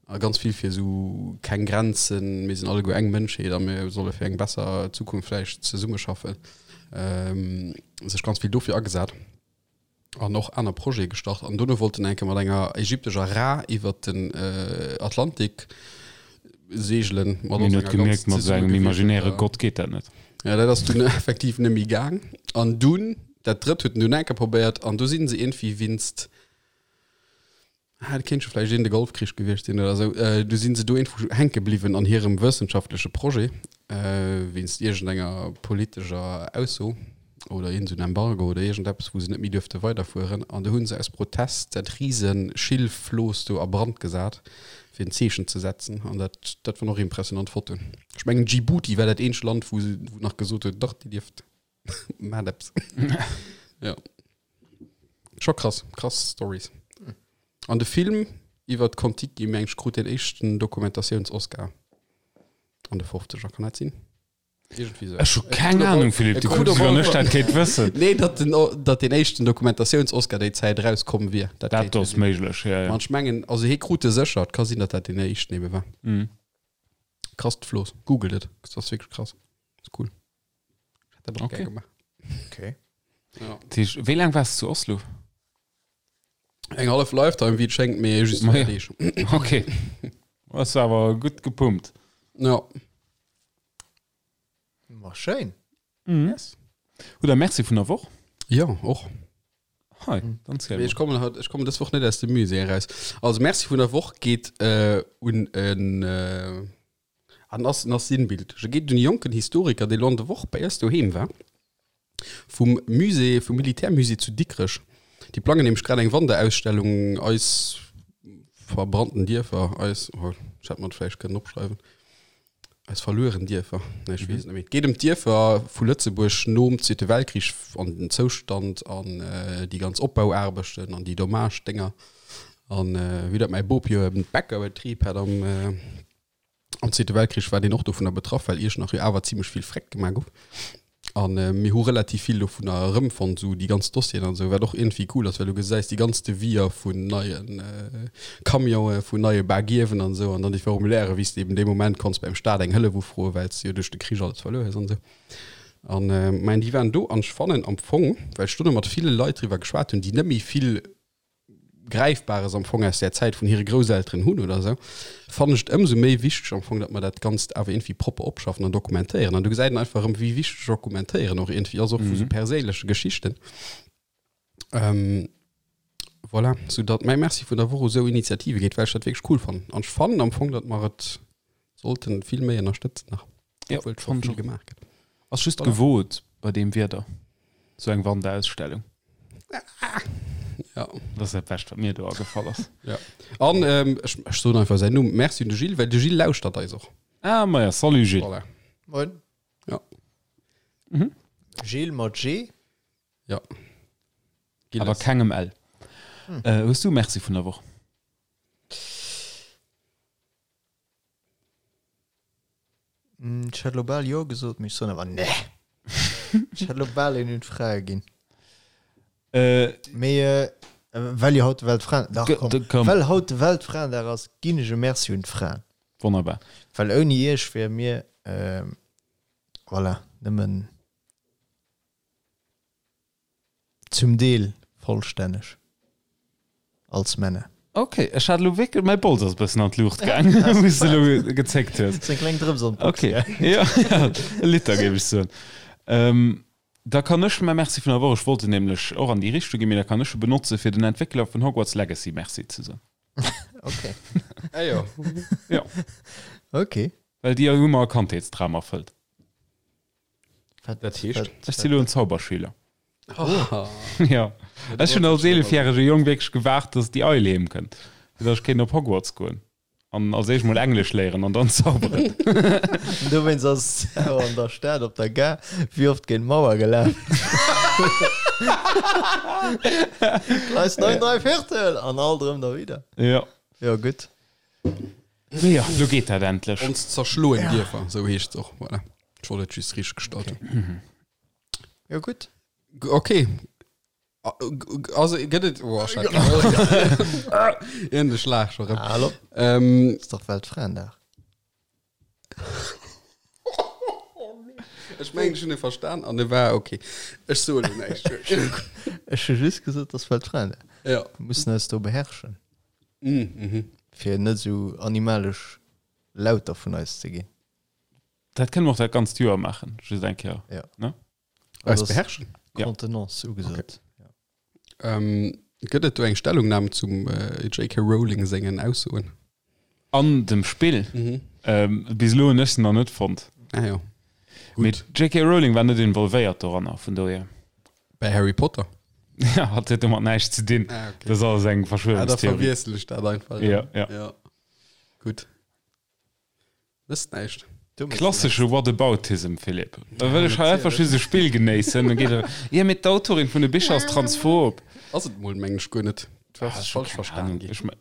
A ganz vill fir esou keng Grenzen, mir sinn alleguer eng Mënschheet a mir solle fir eng besser Zukunft vläicht zesummeschaffen. Ähm, sech ganz vill dofir agesat. An och aner Projete gestart. An dono wollt en eng Kéier mat enger ägyptescher Ra iwwert den äh, Atlantik seegelen. Mat Mir huet gemierkt, mat esou engem imaginäre Gott geet dat net. Ja, dat ass dunn effektiv net méi gaang. An dunn, dat drëtt huet en dunn eng Kéier probéiert an do sinn se iergendwéi winst, ah, dat kéint scho vläicht een de Golfkrich gewiescht sinn oder esou, du sinn se do iergendwou hänke bliwwen an hirem wëssenschaftleche Projet, wéinst iergendenger politescher Ausso oder iergend esou en Embargo oder iergendeppes, wou se net méi duerfte weiderfueren. An du hu se aus Protest dat rise Schilfflooss do a Brand gesat, fir en Zeechen ze setzen. An dat, dat waren och impressionant Fotoen. Ech mengen Djibouti war dat eenzegt Land, wou se wou nach gesot huet, dach, dir dierft, maacht eppes. Ja. Scho krass, krass Stories. An de Film iwwer d'Kon-Tiki, meng ech, krut deen éischten Dokumentatiouns-Oscar an de 50er, kann dat sinn? Irgendwie so. Ech hu keng Ahnung, Philippe, du kucks, wéi wann ech dat kéint wëssen. Nee, datt den, datt den éischten Dokumentatiouns-Oscar déi Zäit erauskomm wier. Dat, dat ass méiglech, ja, ja. An ech mengen, also hie krut e sécher, et ka sinn, datt dat deen éischten ebe war. Mhm. Krasst Floss. Googelt et, dat ass wierklech krass. Ass cool. Ech hätt dat och Okay. gär gemaach. Okay. Ja. Dat heescht, wéi laang waars du zu Oslo? Eng hallef Lifetime, wéi et schéngt, mee just Ma 4 ja. Deeg. Okay. Ass awer gutt gepumpt. Ja. Ma schéin. Mhm. Yes. Hutt der Merci vun der Woch? Ja, och. Hei, dann ziel Mee ech mol. kommen haut, ech kommen dës Woch net aus dem Musée eraus. Also Merci vun der Woch geet äh, un en äh, an ass, en ass sinnbildlech. E geet un e jonken Historiker, dee lo an der Woch bei eis doheem war, vum Musée, vum Militärmusée zu Dikrech. Déi plangen nämlech grad eng Wanderausstellung, eis verbrannten Dierfer, eis, oh, ech hätt mer et vläicht kënnen opschreiwen, eis verlueren Dierfer, nee, ech weess et net méi. Et geet ëm d'Dierfer vu Lëtzebuerg nom Zweete Weltkrich an den Zoustand an déi ganz Opbauaarbechten an déi Dommage-Dénger. An wéi dat mäi Bop jo e Bäckerbetrib hat am, Am Zweete Weltkrich war deen och dovunner betraff, well Iechternach jo awer zimmlech vill Freck gemaach gouf. An mir hu relativ vill dovunner erëmfonnt, esou déi ganz Dossieren an esou, wat och iergendwéi cool ass, well du gesäis déi ganz Deviser vun neie Camionen, vun neie Bagiewen an esou, an dann déi Formulairen, wéi s de eben dee Moment konns beim Staat eng Hëllef ufroen, well s de jo duerch de Krich alles verluer hues an esou. An mä déi waren do an ech fannen am Fong, well ech dono mat ville Leit driwwer geschwat hunn, déi net méi vill Gräifbares am Fong aus där Zäit vun hire Grousselteren hunn oder esou, fannen ech et ëmsou méi wichteg am Fong, datt mer dat Ganzt awer iergendwéi propper opschaffen an dokumentéieren. An do gesäit een einfach erëm, wéi wichteg Dokumentéieren och iergendwéi ass, och vu sou perséinleche Geschichten. Voilà, soudatt mäi Merci vun der Woch u sou Initiative geet, well ech dat wierklech cool fannen. An ech fannen am Fong, datt mer et sollten vill méi ënnerstëtzen nach, Jo, obwuel scho fannen ech vill och. gemaach gëtt. Ass just Voilà. gewot bei deem Wieder, sou eng Wanderausstellung. Ja. Dat ass dat Bescht, wat mir do agefall ass. Ja. An ähm, ech, ech soen einfach säin Numm. Merci un de Gilles, well de Gilles lauschtert eis och. Ah, maja, salut Gilles. Voilà. Moin. Ja. Mhm. Gilles mat G? Ja. Awer Gilles. kengem L. Äh, hues du Merci vun der Woch? Ech hätt elo bal jo gesot, mee ech soen awer nee. Ech hätt elo bal een un d'Frae ginn. Mee well jo haut de Weltfraen, dach komm, Komm. well haut de Weltfraendag ass, ginn ech e Merci un d'Fraen. Wonnerbar. Well ouni iech wiere mir, voilà, nëmmen Zum Deel vollstänneg als Männer. Ok, ech hat elo wierklech, mäi Bols ass e bëssen an d'Luucht gaang, wou s de elo gezéckt hues. Ass eng kleng Drëps an d'Box Ok, gaang. jo, jo, e Liter géif ech soen. Da kann ech mäi Merci vun der Woch, ech wollt en nämlech och an déi Richtung ginn, mee da kann ech e benotze fir den Entwéckler vun Hogwarts Legacy Merci ze soen. Ok. Ah jo. Jo. Ok. Well déi hu mer e Kandheetsdram erfëllt. Dat heescht? Ech si lo en Zauberschüler. Oh. Ja. Ech hunn als eelefjärege Jong wierklech gewaart, dass déi Eil heem kënnt, fir dass ech kéint op Hogwarts goen an als éischt mol Englesch léieren an dann zauberen. Dowéinst ass et awer an der Stad op der Gare wéi oft géint d'Mauer gelaf. Gleis 9 dräiviertel an alt erëm derwidder. Ja. Jo, gutt. Mee jo, lo geet dat endlech. Ons zerschloen Dierfer, sou heescht se och. Voilà. Ech wollt et just richteg gestallt hunn. Jo, gutt. Okay. Also gëtt et oh, Iergend e Schlag scho rëm. Hallo. Ähm, Ass dach Weltfraendag. Ech mengen, ech hunn e verstan an e war okay. Ech soe lo näischt. Ech hu just gesot, dass Weltfraendag. Ja. Mir mussen eis do beherrschen. Mm, mhm. Fir net esou animalesch Lauter vun eis ze ginn. Dat kënne mer och dat ganzt Joer maachen, just eng Kéier. Ja. Ne? Eis beherrschen? Ja. Contenance ugesot. Okay. Ähm, gëtt et do eng Stellungnam zum äh, JK Rowling sengen Aussoen? An dem Spill? Mhm. Ähm, bis elo hunn ech se nach net fonnt. Ah ja. Mee Gutt. d'JK Rowling war net involvéiert doranner, vun dohier. Bei Harry Potter? Ja, hat huet domat näischt ze dinn. Ah, okay. Dat ass alles eng Ah, da Verschwörungstheorie. verwiessel ech dat einfach. Ja, ja. ja. Gutt. Wësst näischt. Klassesche Whataboutism, Philippe. Da wëll ech hei einfach just e Spill genéissen, dann geet e, Jo, mee d'Autorin vun de Bicher ass transphob. Ass et mol, mengen ech, guer net. Du has Ah, es ech hu falsch keng verstan Ahnung. ginn. Ech me-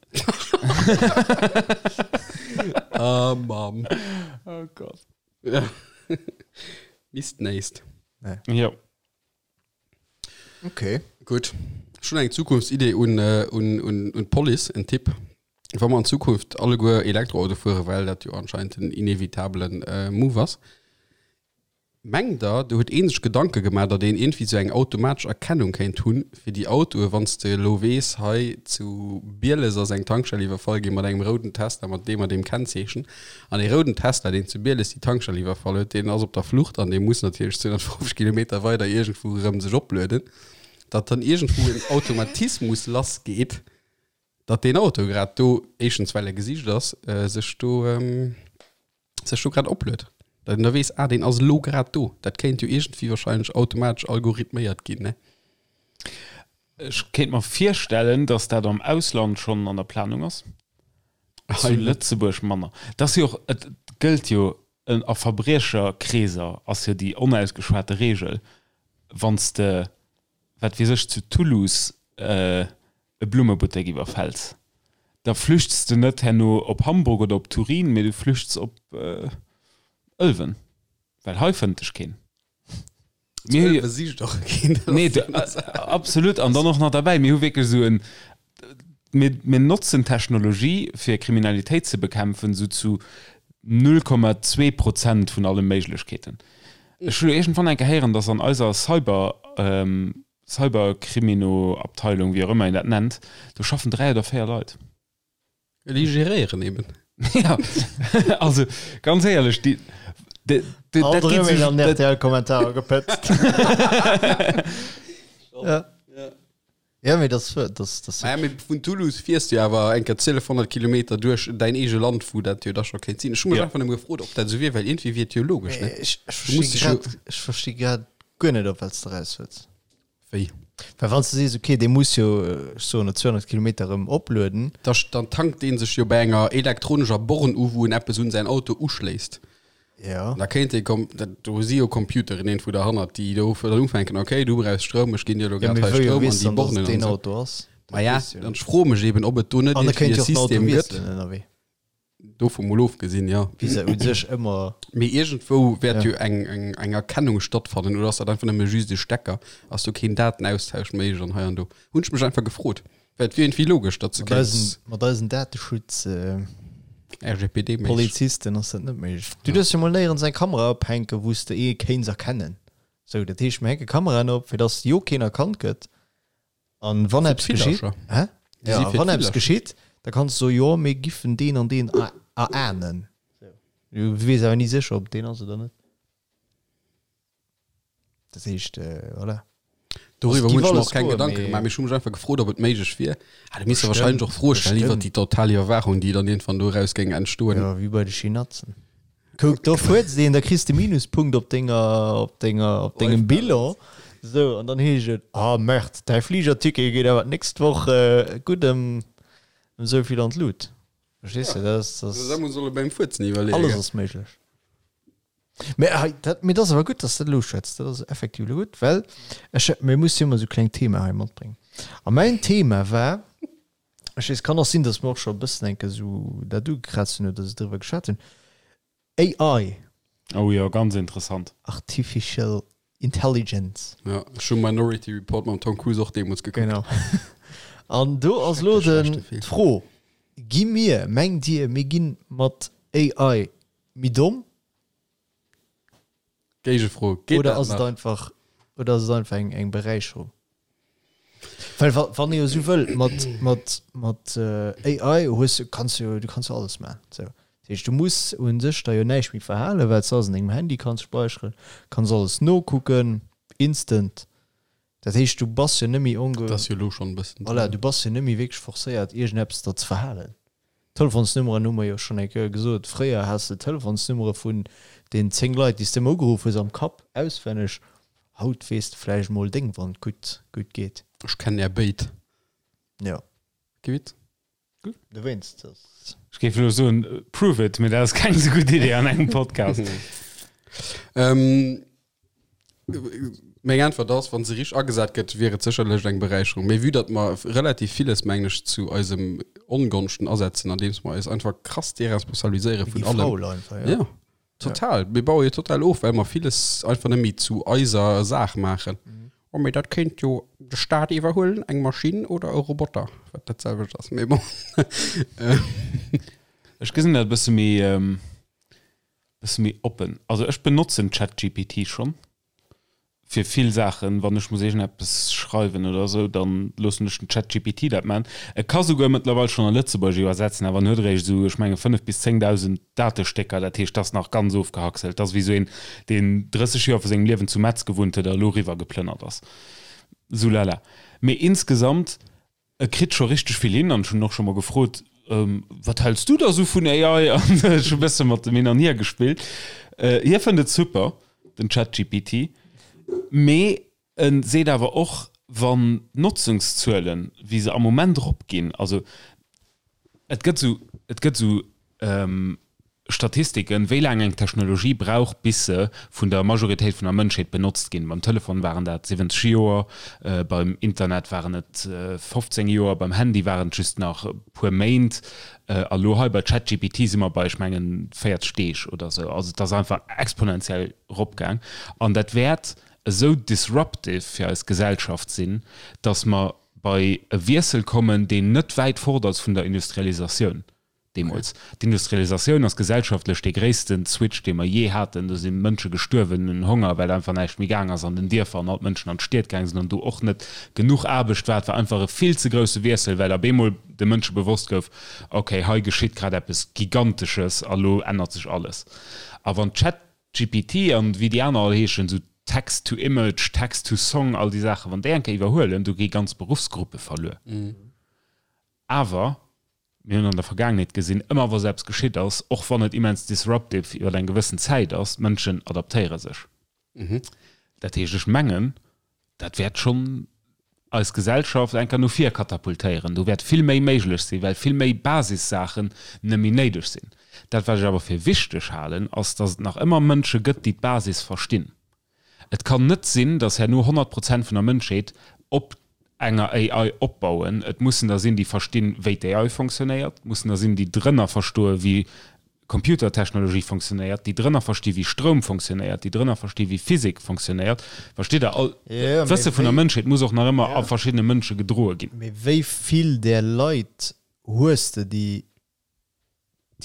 Ah, Mamm. Oh Gott. Ja. Misst näisst. Jo. Okay. Gutt. Ech hunn eng Zukunftsidee un, un, un, un d'Police, en Tipp. Wa mer an Zukunft alleguer Elektroauto fueren, well dat jo anscheinend den inevitabelen Move ass, mengt Der, do huet ee sech Gedanke gemaach, datt een iergendwéi esou eng automatesch Erkennung kéint hunn fir déi Autoe, wann s de elo weess, hei zu Bieles ass eng Tankstell iwwerfall gi mat engem rouden Tesla mat deem a deem Kennzeechen, An dee rouden Tesla, deen zu Bieles déi Tankstell iwwerfall huet, deen ass op der Flucht an dee muss natierlech 250 Kilometer weider iergendwou erëm sech oplueden, datt dann iergendwou en Automatismus lassgeet, datt deen Auto grad do, éischtens well e gesicht ass, sech do, sech do grad opluet. Datt een da weess, ah, deen ass elo grad do. Dat kéint jo iergendwéi wahrscheinlech automatesch algorithméiert ginn, ne? Ech kéint mer virstellen, datt dat am Ausland schonn an der Planung ass. Zu Lëtzebuerg manner. Et ass jo och, et gëllt jo a Verbriecherkreeser ass jo déi onausgeschwate Reegel, wann s de, wat weess ech, zu Toulouse e Blummebuttek iwwerfäls, da flüchts de net herno op Hamburg oder op Turin, mee du flüchts op Ëlwen, well hei fënnt dech keen. Mir hu jo- Besicht och keen. Nee, du, absolut. An dann och nach derbäi, mir hu wierklech esou en, mir, mir notzen Technologie, fir Kriminalitéit ze bekämpfen, esou zu 0,2 Prozent vun alle Méiglechkeeten. Ech hu lo iergendwann eng Kéier héieren, dass an eiser Cyber, Cyberkrimino-Abteilung, wéi och ëmmer een dat nennt, do schaffen 3 oder 4 Leit. Déi geréieren eben. Ja, also ganz éierlech, déi, déi, déi, Alt dat geet erëm een sech, an dat, RTL-Kommentarer gepëtzt. Ja. Ja, mee das, das, das Naja, mee vun Toulouse fiers du awer eng Kéier 1200 Kilometer duerch däin eege Land, wou dat jo da scho kéint sinn. Ech hu mech Ja. einfach nëmme gefrot, ob dat esou wier, well iergendwéi wier et jo logesch, ne? Ech, ech Du musst versti dech jo. grad, ech versti grad guer net, op wat s de raus wëlls. Wéi? Well wann s de sees, okay, dee muss jo, ech soen et, 200 Kilometer erëm oplueden. Da dann tankt dee sech jo bei enger elektronescher Born u, wou en eppes un säin Auto uschléisst. Ja. An da kéint ee kom, dat, do si jo Computeren iergendwou derhannert, déi do dann ufänken, okay, du brauchs Stroum, ech ginn dir elo Ja, grad mee hei wou jo Stroum an weess déi dann, dass Bornen et an deen esou. Auto ass? Ma ja, dann ech froe mech eben, ob et do net An da iergendwéi kéint e jo och den Auto System gëtt. wiesselen ënnerwee. Dovu mol ofgesinn, jo. Wéi se u sech ëmmer. Mee iergendwou wäert Ja. jo eng, eng, eng Erkennung stattfannen, oder ass dat einfach nëmme just e Stecker? Ass do keen Datenaustausch méiglech an hei an do? Hunn ech mech einfach gefrot, well et wier iergendwéi logesch, datt se Mat eisen, kéints mat eisen Dateschutz. Äh, RGPD-méisseg. Polizisten ass dat net méiglech. Du duerfs jo mol néierens eng Kamera ophänken, wou s de ee kéints erkennen. Sou, dat heescht, mir hänke Kameraen op, fir dass jo keen erkannt gëtt. An wann eppes geschitt, hä? Ja, wann eppes geschitt, da kanns du soen, jo, mir giffen deen an deen erahnen. Du weess awer ni sécher, ob deen ass oder net. Dat heescht, voilà. Doriwwer Also, hunn ech giff mer alles och keng goen, Gedanke mee gemaach, mee ech hu mech einfach gefrot, ob et méiglech wier. Ah, du misst der Bestimmt, wahrscheinlech och Froe stellen iwwer bestimmt. déi total Iwwerwaachung, déi dann iergendwann doraus géing entstoen. Ja, wéi bei de Chinatzen. Kuck, do fuerzt een, da kriss de Minuspunkt op denger, op denger, op dengem Bilan. Sou, an dann heescht et, ah Merde, däi Fligerticket geet awer d'nächst Woch gutt ëm, ëm esou vill an d'Lut. Verstees de, dat ass, dat Da ass, muss solle beim Fuerzen iwwerleeën. alles ass méiglech. Mä hei, dat, mee dat ass awer gutt, dass de dat elo uschwätz. Dat ass effektiv elo gutt, well ech, mir musse jo ëmmer esou kleng Thema hei matbréngen. A mäin Thema war, Ech weess, kann och sinn, datt mer och scho e bëssen enke sou dat ugekraazt hunn oder driwwer geschwat hunn. AI. Oh jo, ganz interessant. Artificial. Intelligence. Ja, ech hu Minority Report mam Tom Cruise och deemools gekuckt. Genau. An do ass elo den d'Fro, Gi mir, mengt Dir, mir gi mat AI méi domm? Géigefro, Geet Oder dat ass et nach? einfach, oder ass et einfach eng, eng Beräicherung? Well wa, wann ee jo esou wëll, mat, mat, mat AI hues du, kanns du jo, du kanns jo alles maachen. Sou. Dat heescht, du muss u sech der jo näischt méi verhalen, well s de alles an dengem Handy kanns späicheren, kanns alles nokucken, instant. Dat heescht, du bass jo net méi onge. Dat ass jo elo schonn e bëssen. Voilà, du bass jo net méi wierklech forcéiert, iergendeppes der ze verhalen. D'Telefonsnummeren hu mer jo schonn eng Kéier gesot. Fréier has de d'Telefonsnummere vun den 10 Leit, déi s de ëmmer ugeruff hues, am Kapp auswenneg. Haut weess de vläicht mol deng, wann et gutt, gutt geet. Ech kennen är béid. Jo. Kee Witz. Dowéinst ass. Ech géif elo soen, prove it, mee dat ass keng esou gutt Idee an engem Podcast. Ähm, Meng Äntwert ass, wa se richteg agesat gëtt, wier et sécherlech eng Beräicherung. Mee vue datt mer relativ villes, mengen ech, zu eisem Ongonschten asetzen, andeems mer eis einfach krass deresponsabiliséiere vun allem. Faul einfach, ja. Ja, total. Mir baue jo total of, well mer villes einfach net méi zu eiser Saach maachen. Oh, mee dat kéint jo de Staat iwwerhuelen, eng Maschinn oder e Roboter, wat dat selwecht ass, mee bon. Ech gesinn dat e bësse méi. Bësse méi oppen. Also ech benotzen ChatGPT schonn fir vill Saachen. Wann ech muss iergendeppes schreiwen oder esou, dann loossen ech den ChatGPT dat maachen. E ka souguer mëttlerweil schonn a Lëtzebuergesch iwwersetzen, awer en huet eréischt esou, ech menge 5 bis 10.000 Datestécker. Dat heescht, dat ass nach ganz ofgehackselt. Dat ass wéi esou een, deen 30 Joer vu sengem Liewen zu Metz gewunnt huet a elo eriwwer geplënnert ass. Sou lala. Mee insgesamt E kritt scho richteg vill hin an ech hunn en och scho mol gefrot, Wat häls du da sou vun AI? An ech hu bësse mat em hin an hier gespillt. Hie fënnt et super, den ChatGPT, mee e seet awer och, wann d'Notzungszuelen, wéi se am Moment eropginn, also et gëtt sou, et gëtt sou Statistiken, wéi laang eng Technologie brauch, bis se vun der Majoritéit vun der Mënschheet benotzt ginn. Beim Telefon waren dat 70 Joer, beim Internet waren et 15 Joer, beim Handy waren et just nach e puer Méint a lo hei bei ChatGPT si mer bei, ech mengen, 40 Deeg oder esou. Also et ass einfach exponentiell eropgaang an dat wäert esou disruptive fir eis Gesellschaft sinn, datt mer bei e Wiessel kommen, deen net wäit fort ass vun der Industrialisatioun. Deemools. D'Industrialisatioun ass gesellschaftlech dee gréisste Switch, dee mer jee haten. Do si Mënsche gestuerwen un Honger, well einfach näischt méi gaang ass an den Dierfer an all d'Mënschen an d'Stied gaang sinn an do och net genuch Aarbecht war. Et war einfach e vill ze grousse Wiessel, well ab eemol de Mënsche bewosst gouf, okay, hei geschitt grad eppes Gigantesches a lo ännert sech alles. A wann ChatGPT an wéi déi aner all heeschen, esou Text to Image, Text to Song, all déi Saachen, wann déi eng Kéier iwwerhuelen, do gi ganz Beruffsgruppe verluer. Awer mir hunn an der Vergaangenheet gesinn, ëmmer wa sou eppes geschitt ass, och wann et immens disruptive iwwer eng gewëssen Zäit ass, d'Mënschen adaptéiere sech. Dat heescht, ech mengen, dat wäert schonn eis Gesellschaft eng Kéier no vir katapultéieren. Do wäert vill méi méiglech sinn, well vill méi Basissaachen net méi néideg sinn. Dat, wat ech awer fir wichteg halen, ass, datt et nach ëmmer Mënsche gëtt, déi d'Basis verstinn. Et kann net sinn, datt herno 100 Prozent vun der Mënschheet op enger AI opbauen. Et mussen der sinn, déi verstinn, wéi d'AI fonctionnéiert. Et mussen der sinn, déi drënner verstoen, wéi Computertechnologie fonctionnéiert, déi drënner versti wéi Stroum fonctionnéiert, déi drënner versti wéi Physik fonctionnéiert. Verstitt Der? All d'Wësse vun der Mënschheet muss och nach ëmmer a verschiddene Mënsche gedroe ginn. Mee wéi vill där Leit hues de, déi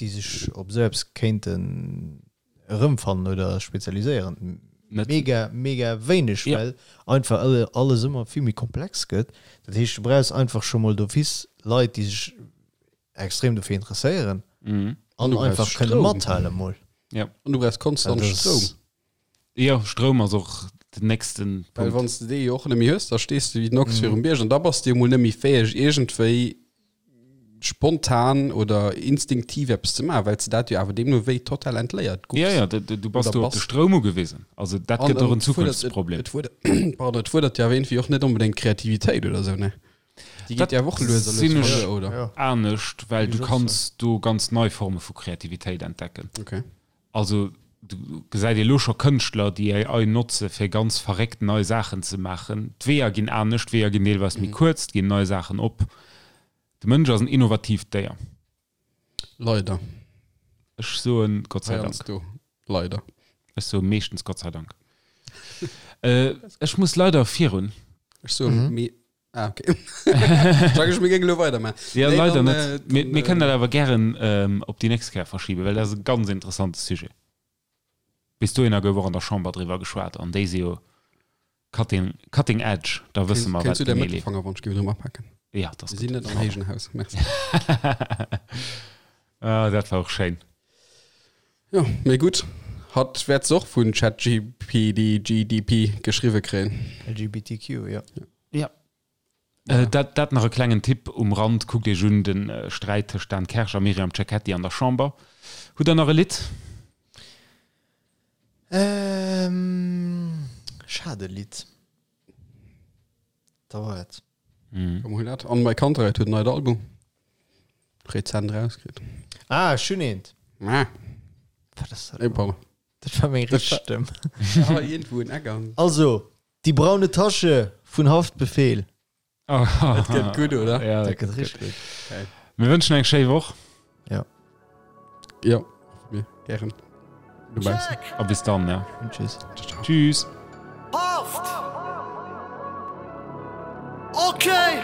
déi sech op esou eppes kéinten erëmfannen oder spezialiséieren? Net. Mega, mega wéineg, ja. well einfach alles ëmmer vill méi komplex gëtt. Dat heescht, du brauchs einfach scho mol d'office Leit, déi sech extrem dofir interesséieren mhm. an einfach kënne mathale mol. Ja. An du brauchs konstant Stroum. Jo, Stroum ass och den nächsten Punkt. Well wann s de dee jo och net méi hues, da stees de wéi den Ochs virum Bierg an da bass de jo mol net méi fäeg iergendwéi spontan oder instinktiv eppes ze maachen, well s de dat jo awer deemno wéi total entléiert goufs. Ja, ja, du bass do op de Stroum ugewisen. Also dat gëtt och en Zukunftsproblem. Et fuerdert, pardon, et fuerdert jo awer iergendwéi och net onbedéngt Kreativitéit oder esou, ne? Déi geet jo awer och lues a lues verluer, oder? Anescht, well du kanns do ganz nei Forme vu Kreativitéit entdecken. Okay. Also do gesäit ee lo scho Kënschtler, déi AI notze fir ganz verréckt nei Saachen ze maachen. D'Weeër ginn anescht, d'Weeër ginn deelweis méi kuerz, et ginn nei Saachen op. De Mënsch ass en innovatiivt Déier. Leider. Ech soen Gott sei Dank. Heiansdo leider. Ech soe meeschtens Gott sei Dank. Ech muss leider virun. Ech soen, mee Ah, okay. Sag ech, mir géingen elo weidermachen. Ja, nee, leider dann, net. Äh, mir, mir kënnen dat awer gären ähm, op déi nächst Kéier verschiben, well dat ass e ganz interessante Sujet. Bis dohinner gouf och an der Chamber driwwer geschwat an déi si jo cutting, cutting edge, da wësse mer, wat genee leeft. Fanger, wann ech géif drëm apaken. Ja, dat ass gutt. Mir sinn net am héijen Haus, merci. Ah, dat war och schéin. Jo, mee gutt. Hatt wäert se och vun ChatGPD, GDP geschriwwe kréien. LGBTQ, jo. Ja. Dat, dat nach e klengen Tipp um Rand, Kuckt Iech un de Sträit tëscht Dan Kersch a Myriam Cecchetti an der Chamber. Hutt Der nach e Lidd? Ähm, ech hat e Lidd. Da war et. Komm, hol dat. An My Kantereit huet en neit Album rezent rauskritt. Ah, ech hunn eent. Ah. Wat ass dat? Ey, pardon. Dat war meng richteg Stëmm. Ah, iergendwou en Eck an. Also, Die braune Tasche vun Haftbefehl. Dat gëtt gutt, oder? Ja, dat gëtt richteg gutt. Geil. Mir wënschen eng schéi Woch. Ja. Ja, mir gären. Dobaussen. A bis dann, ja. Und tschüss. Tschüss. Haft! Okay!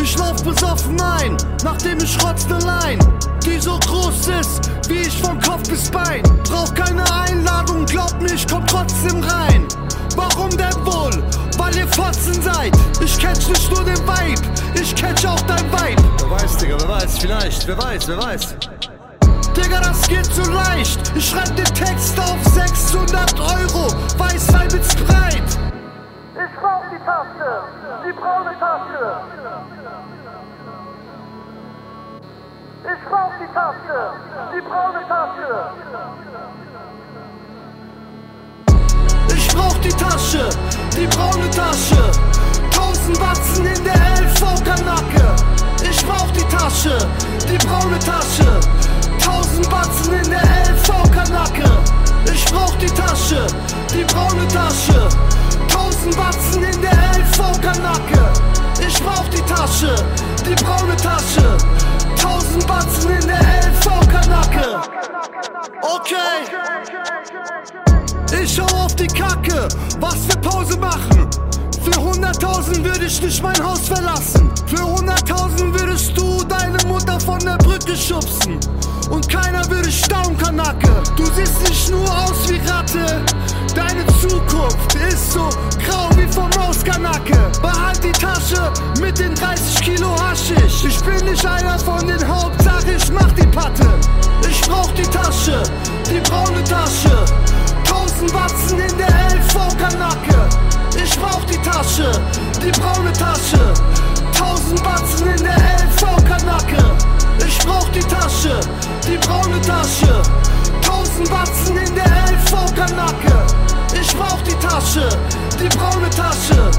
Ich lauf besoffen ein, nachdem ich rotz ne Line, die so groß ist, wie ich von Kopf bis Bein. Brauch keine Einladung, glaub mir, ich komm trotzdem rein. Warum denn wohl? Weil ihr Fotzen seid. Ich catch nicht nur den Vibe, ich catch auch dein Vibe. Wer weiß, Digga, wer weiß, vielleicht, wer weiß, wer weiß. Digga, das geht zu leicht. Ich schreib den Text auf 600 Euro, Weißwein mit Sprite. Ich brauch die Tasche, die braune Tasche. Ich brauch die Tasche, die braune Tasche. Ich brauch die Tasche, die braune Tasche. 1000 Batzen in der LV-Kanacke. Ich brauch die Tasche, die braune Tasche. 1000 Batzen in der LV-Kanacke. Ich brauch die Tasche, die braune Tasche. 1000 Batzen in der LV-Kanacke. Ich brauch die Tasche, die braune Tasche. 1000 Batzen in der LV-Kanacke. Okay. Ich hau auf die Kacke, was wir Pause machen. Für 100.000 würde ich nicht mein Haus verlassen. Für 100.000 würdest du deine Mutter von der Brücke schubsen. Und keiner würde staunen, Kanacke. Du siehst nicht nur aus wie Ratte. Deine Zukunft ist so grau wie vom Maus, Kanacke. Behalt die Tasche mit den 30 Kilo Haschisch. Ich bin nicht einer von den Hauptsache, ich mach die Patte. Ich brauch die Tasche, die braune Tasche. 1000 Batzen in der LV-Kanacke. Ich brauch die Tasche, die braune Tasche. 1000 Batzen in der LV-Kanacke. Ich brauch die Tasche, die braune Tasche. 1000 Batzen in der LV-Kanacke. Ich brauch die Tasche, die braune Tasche.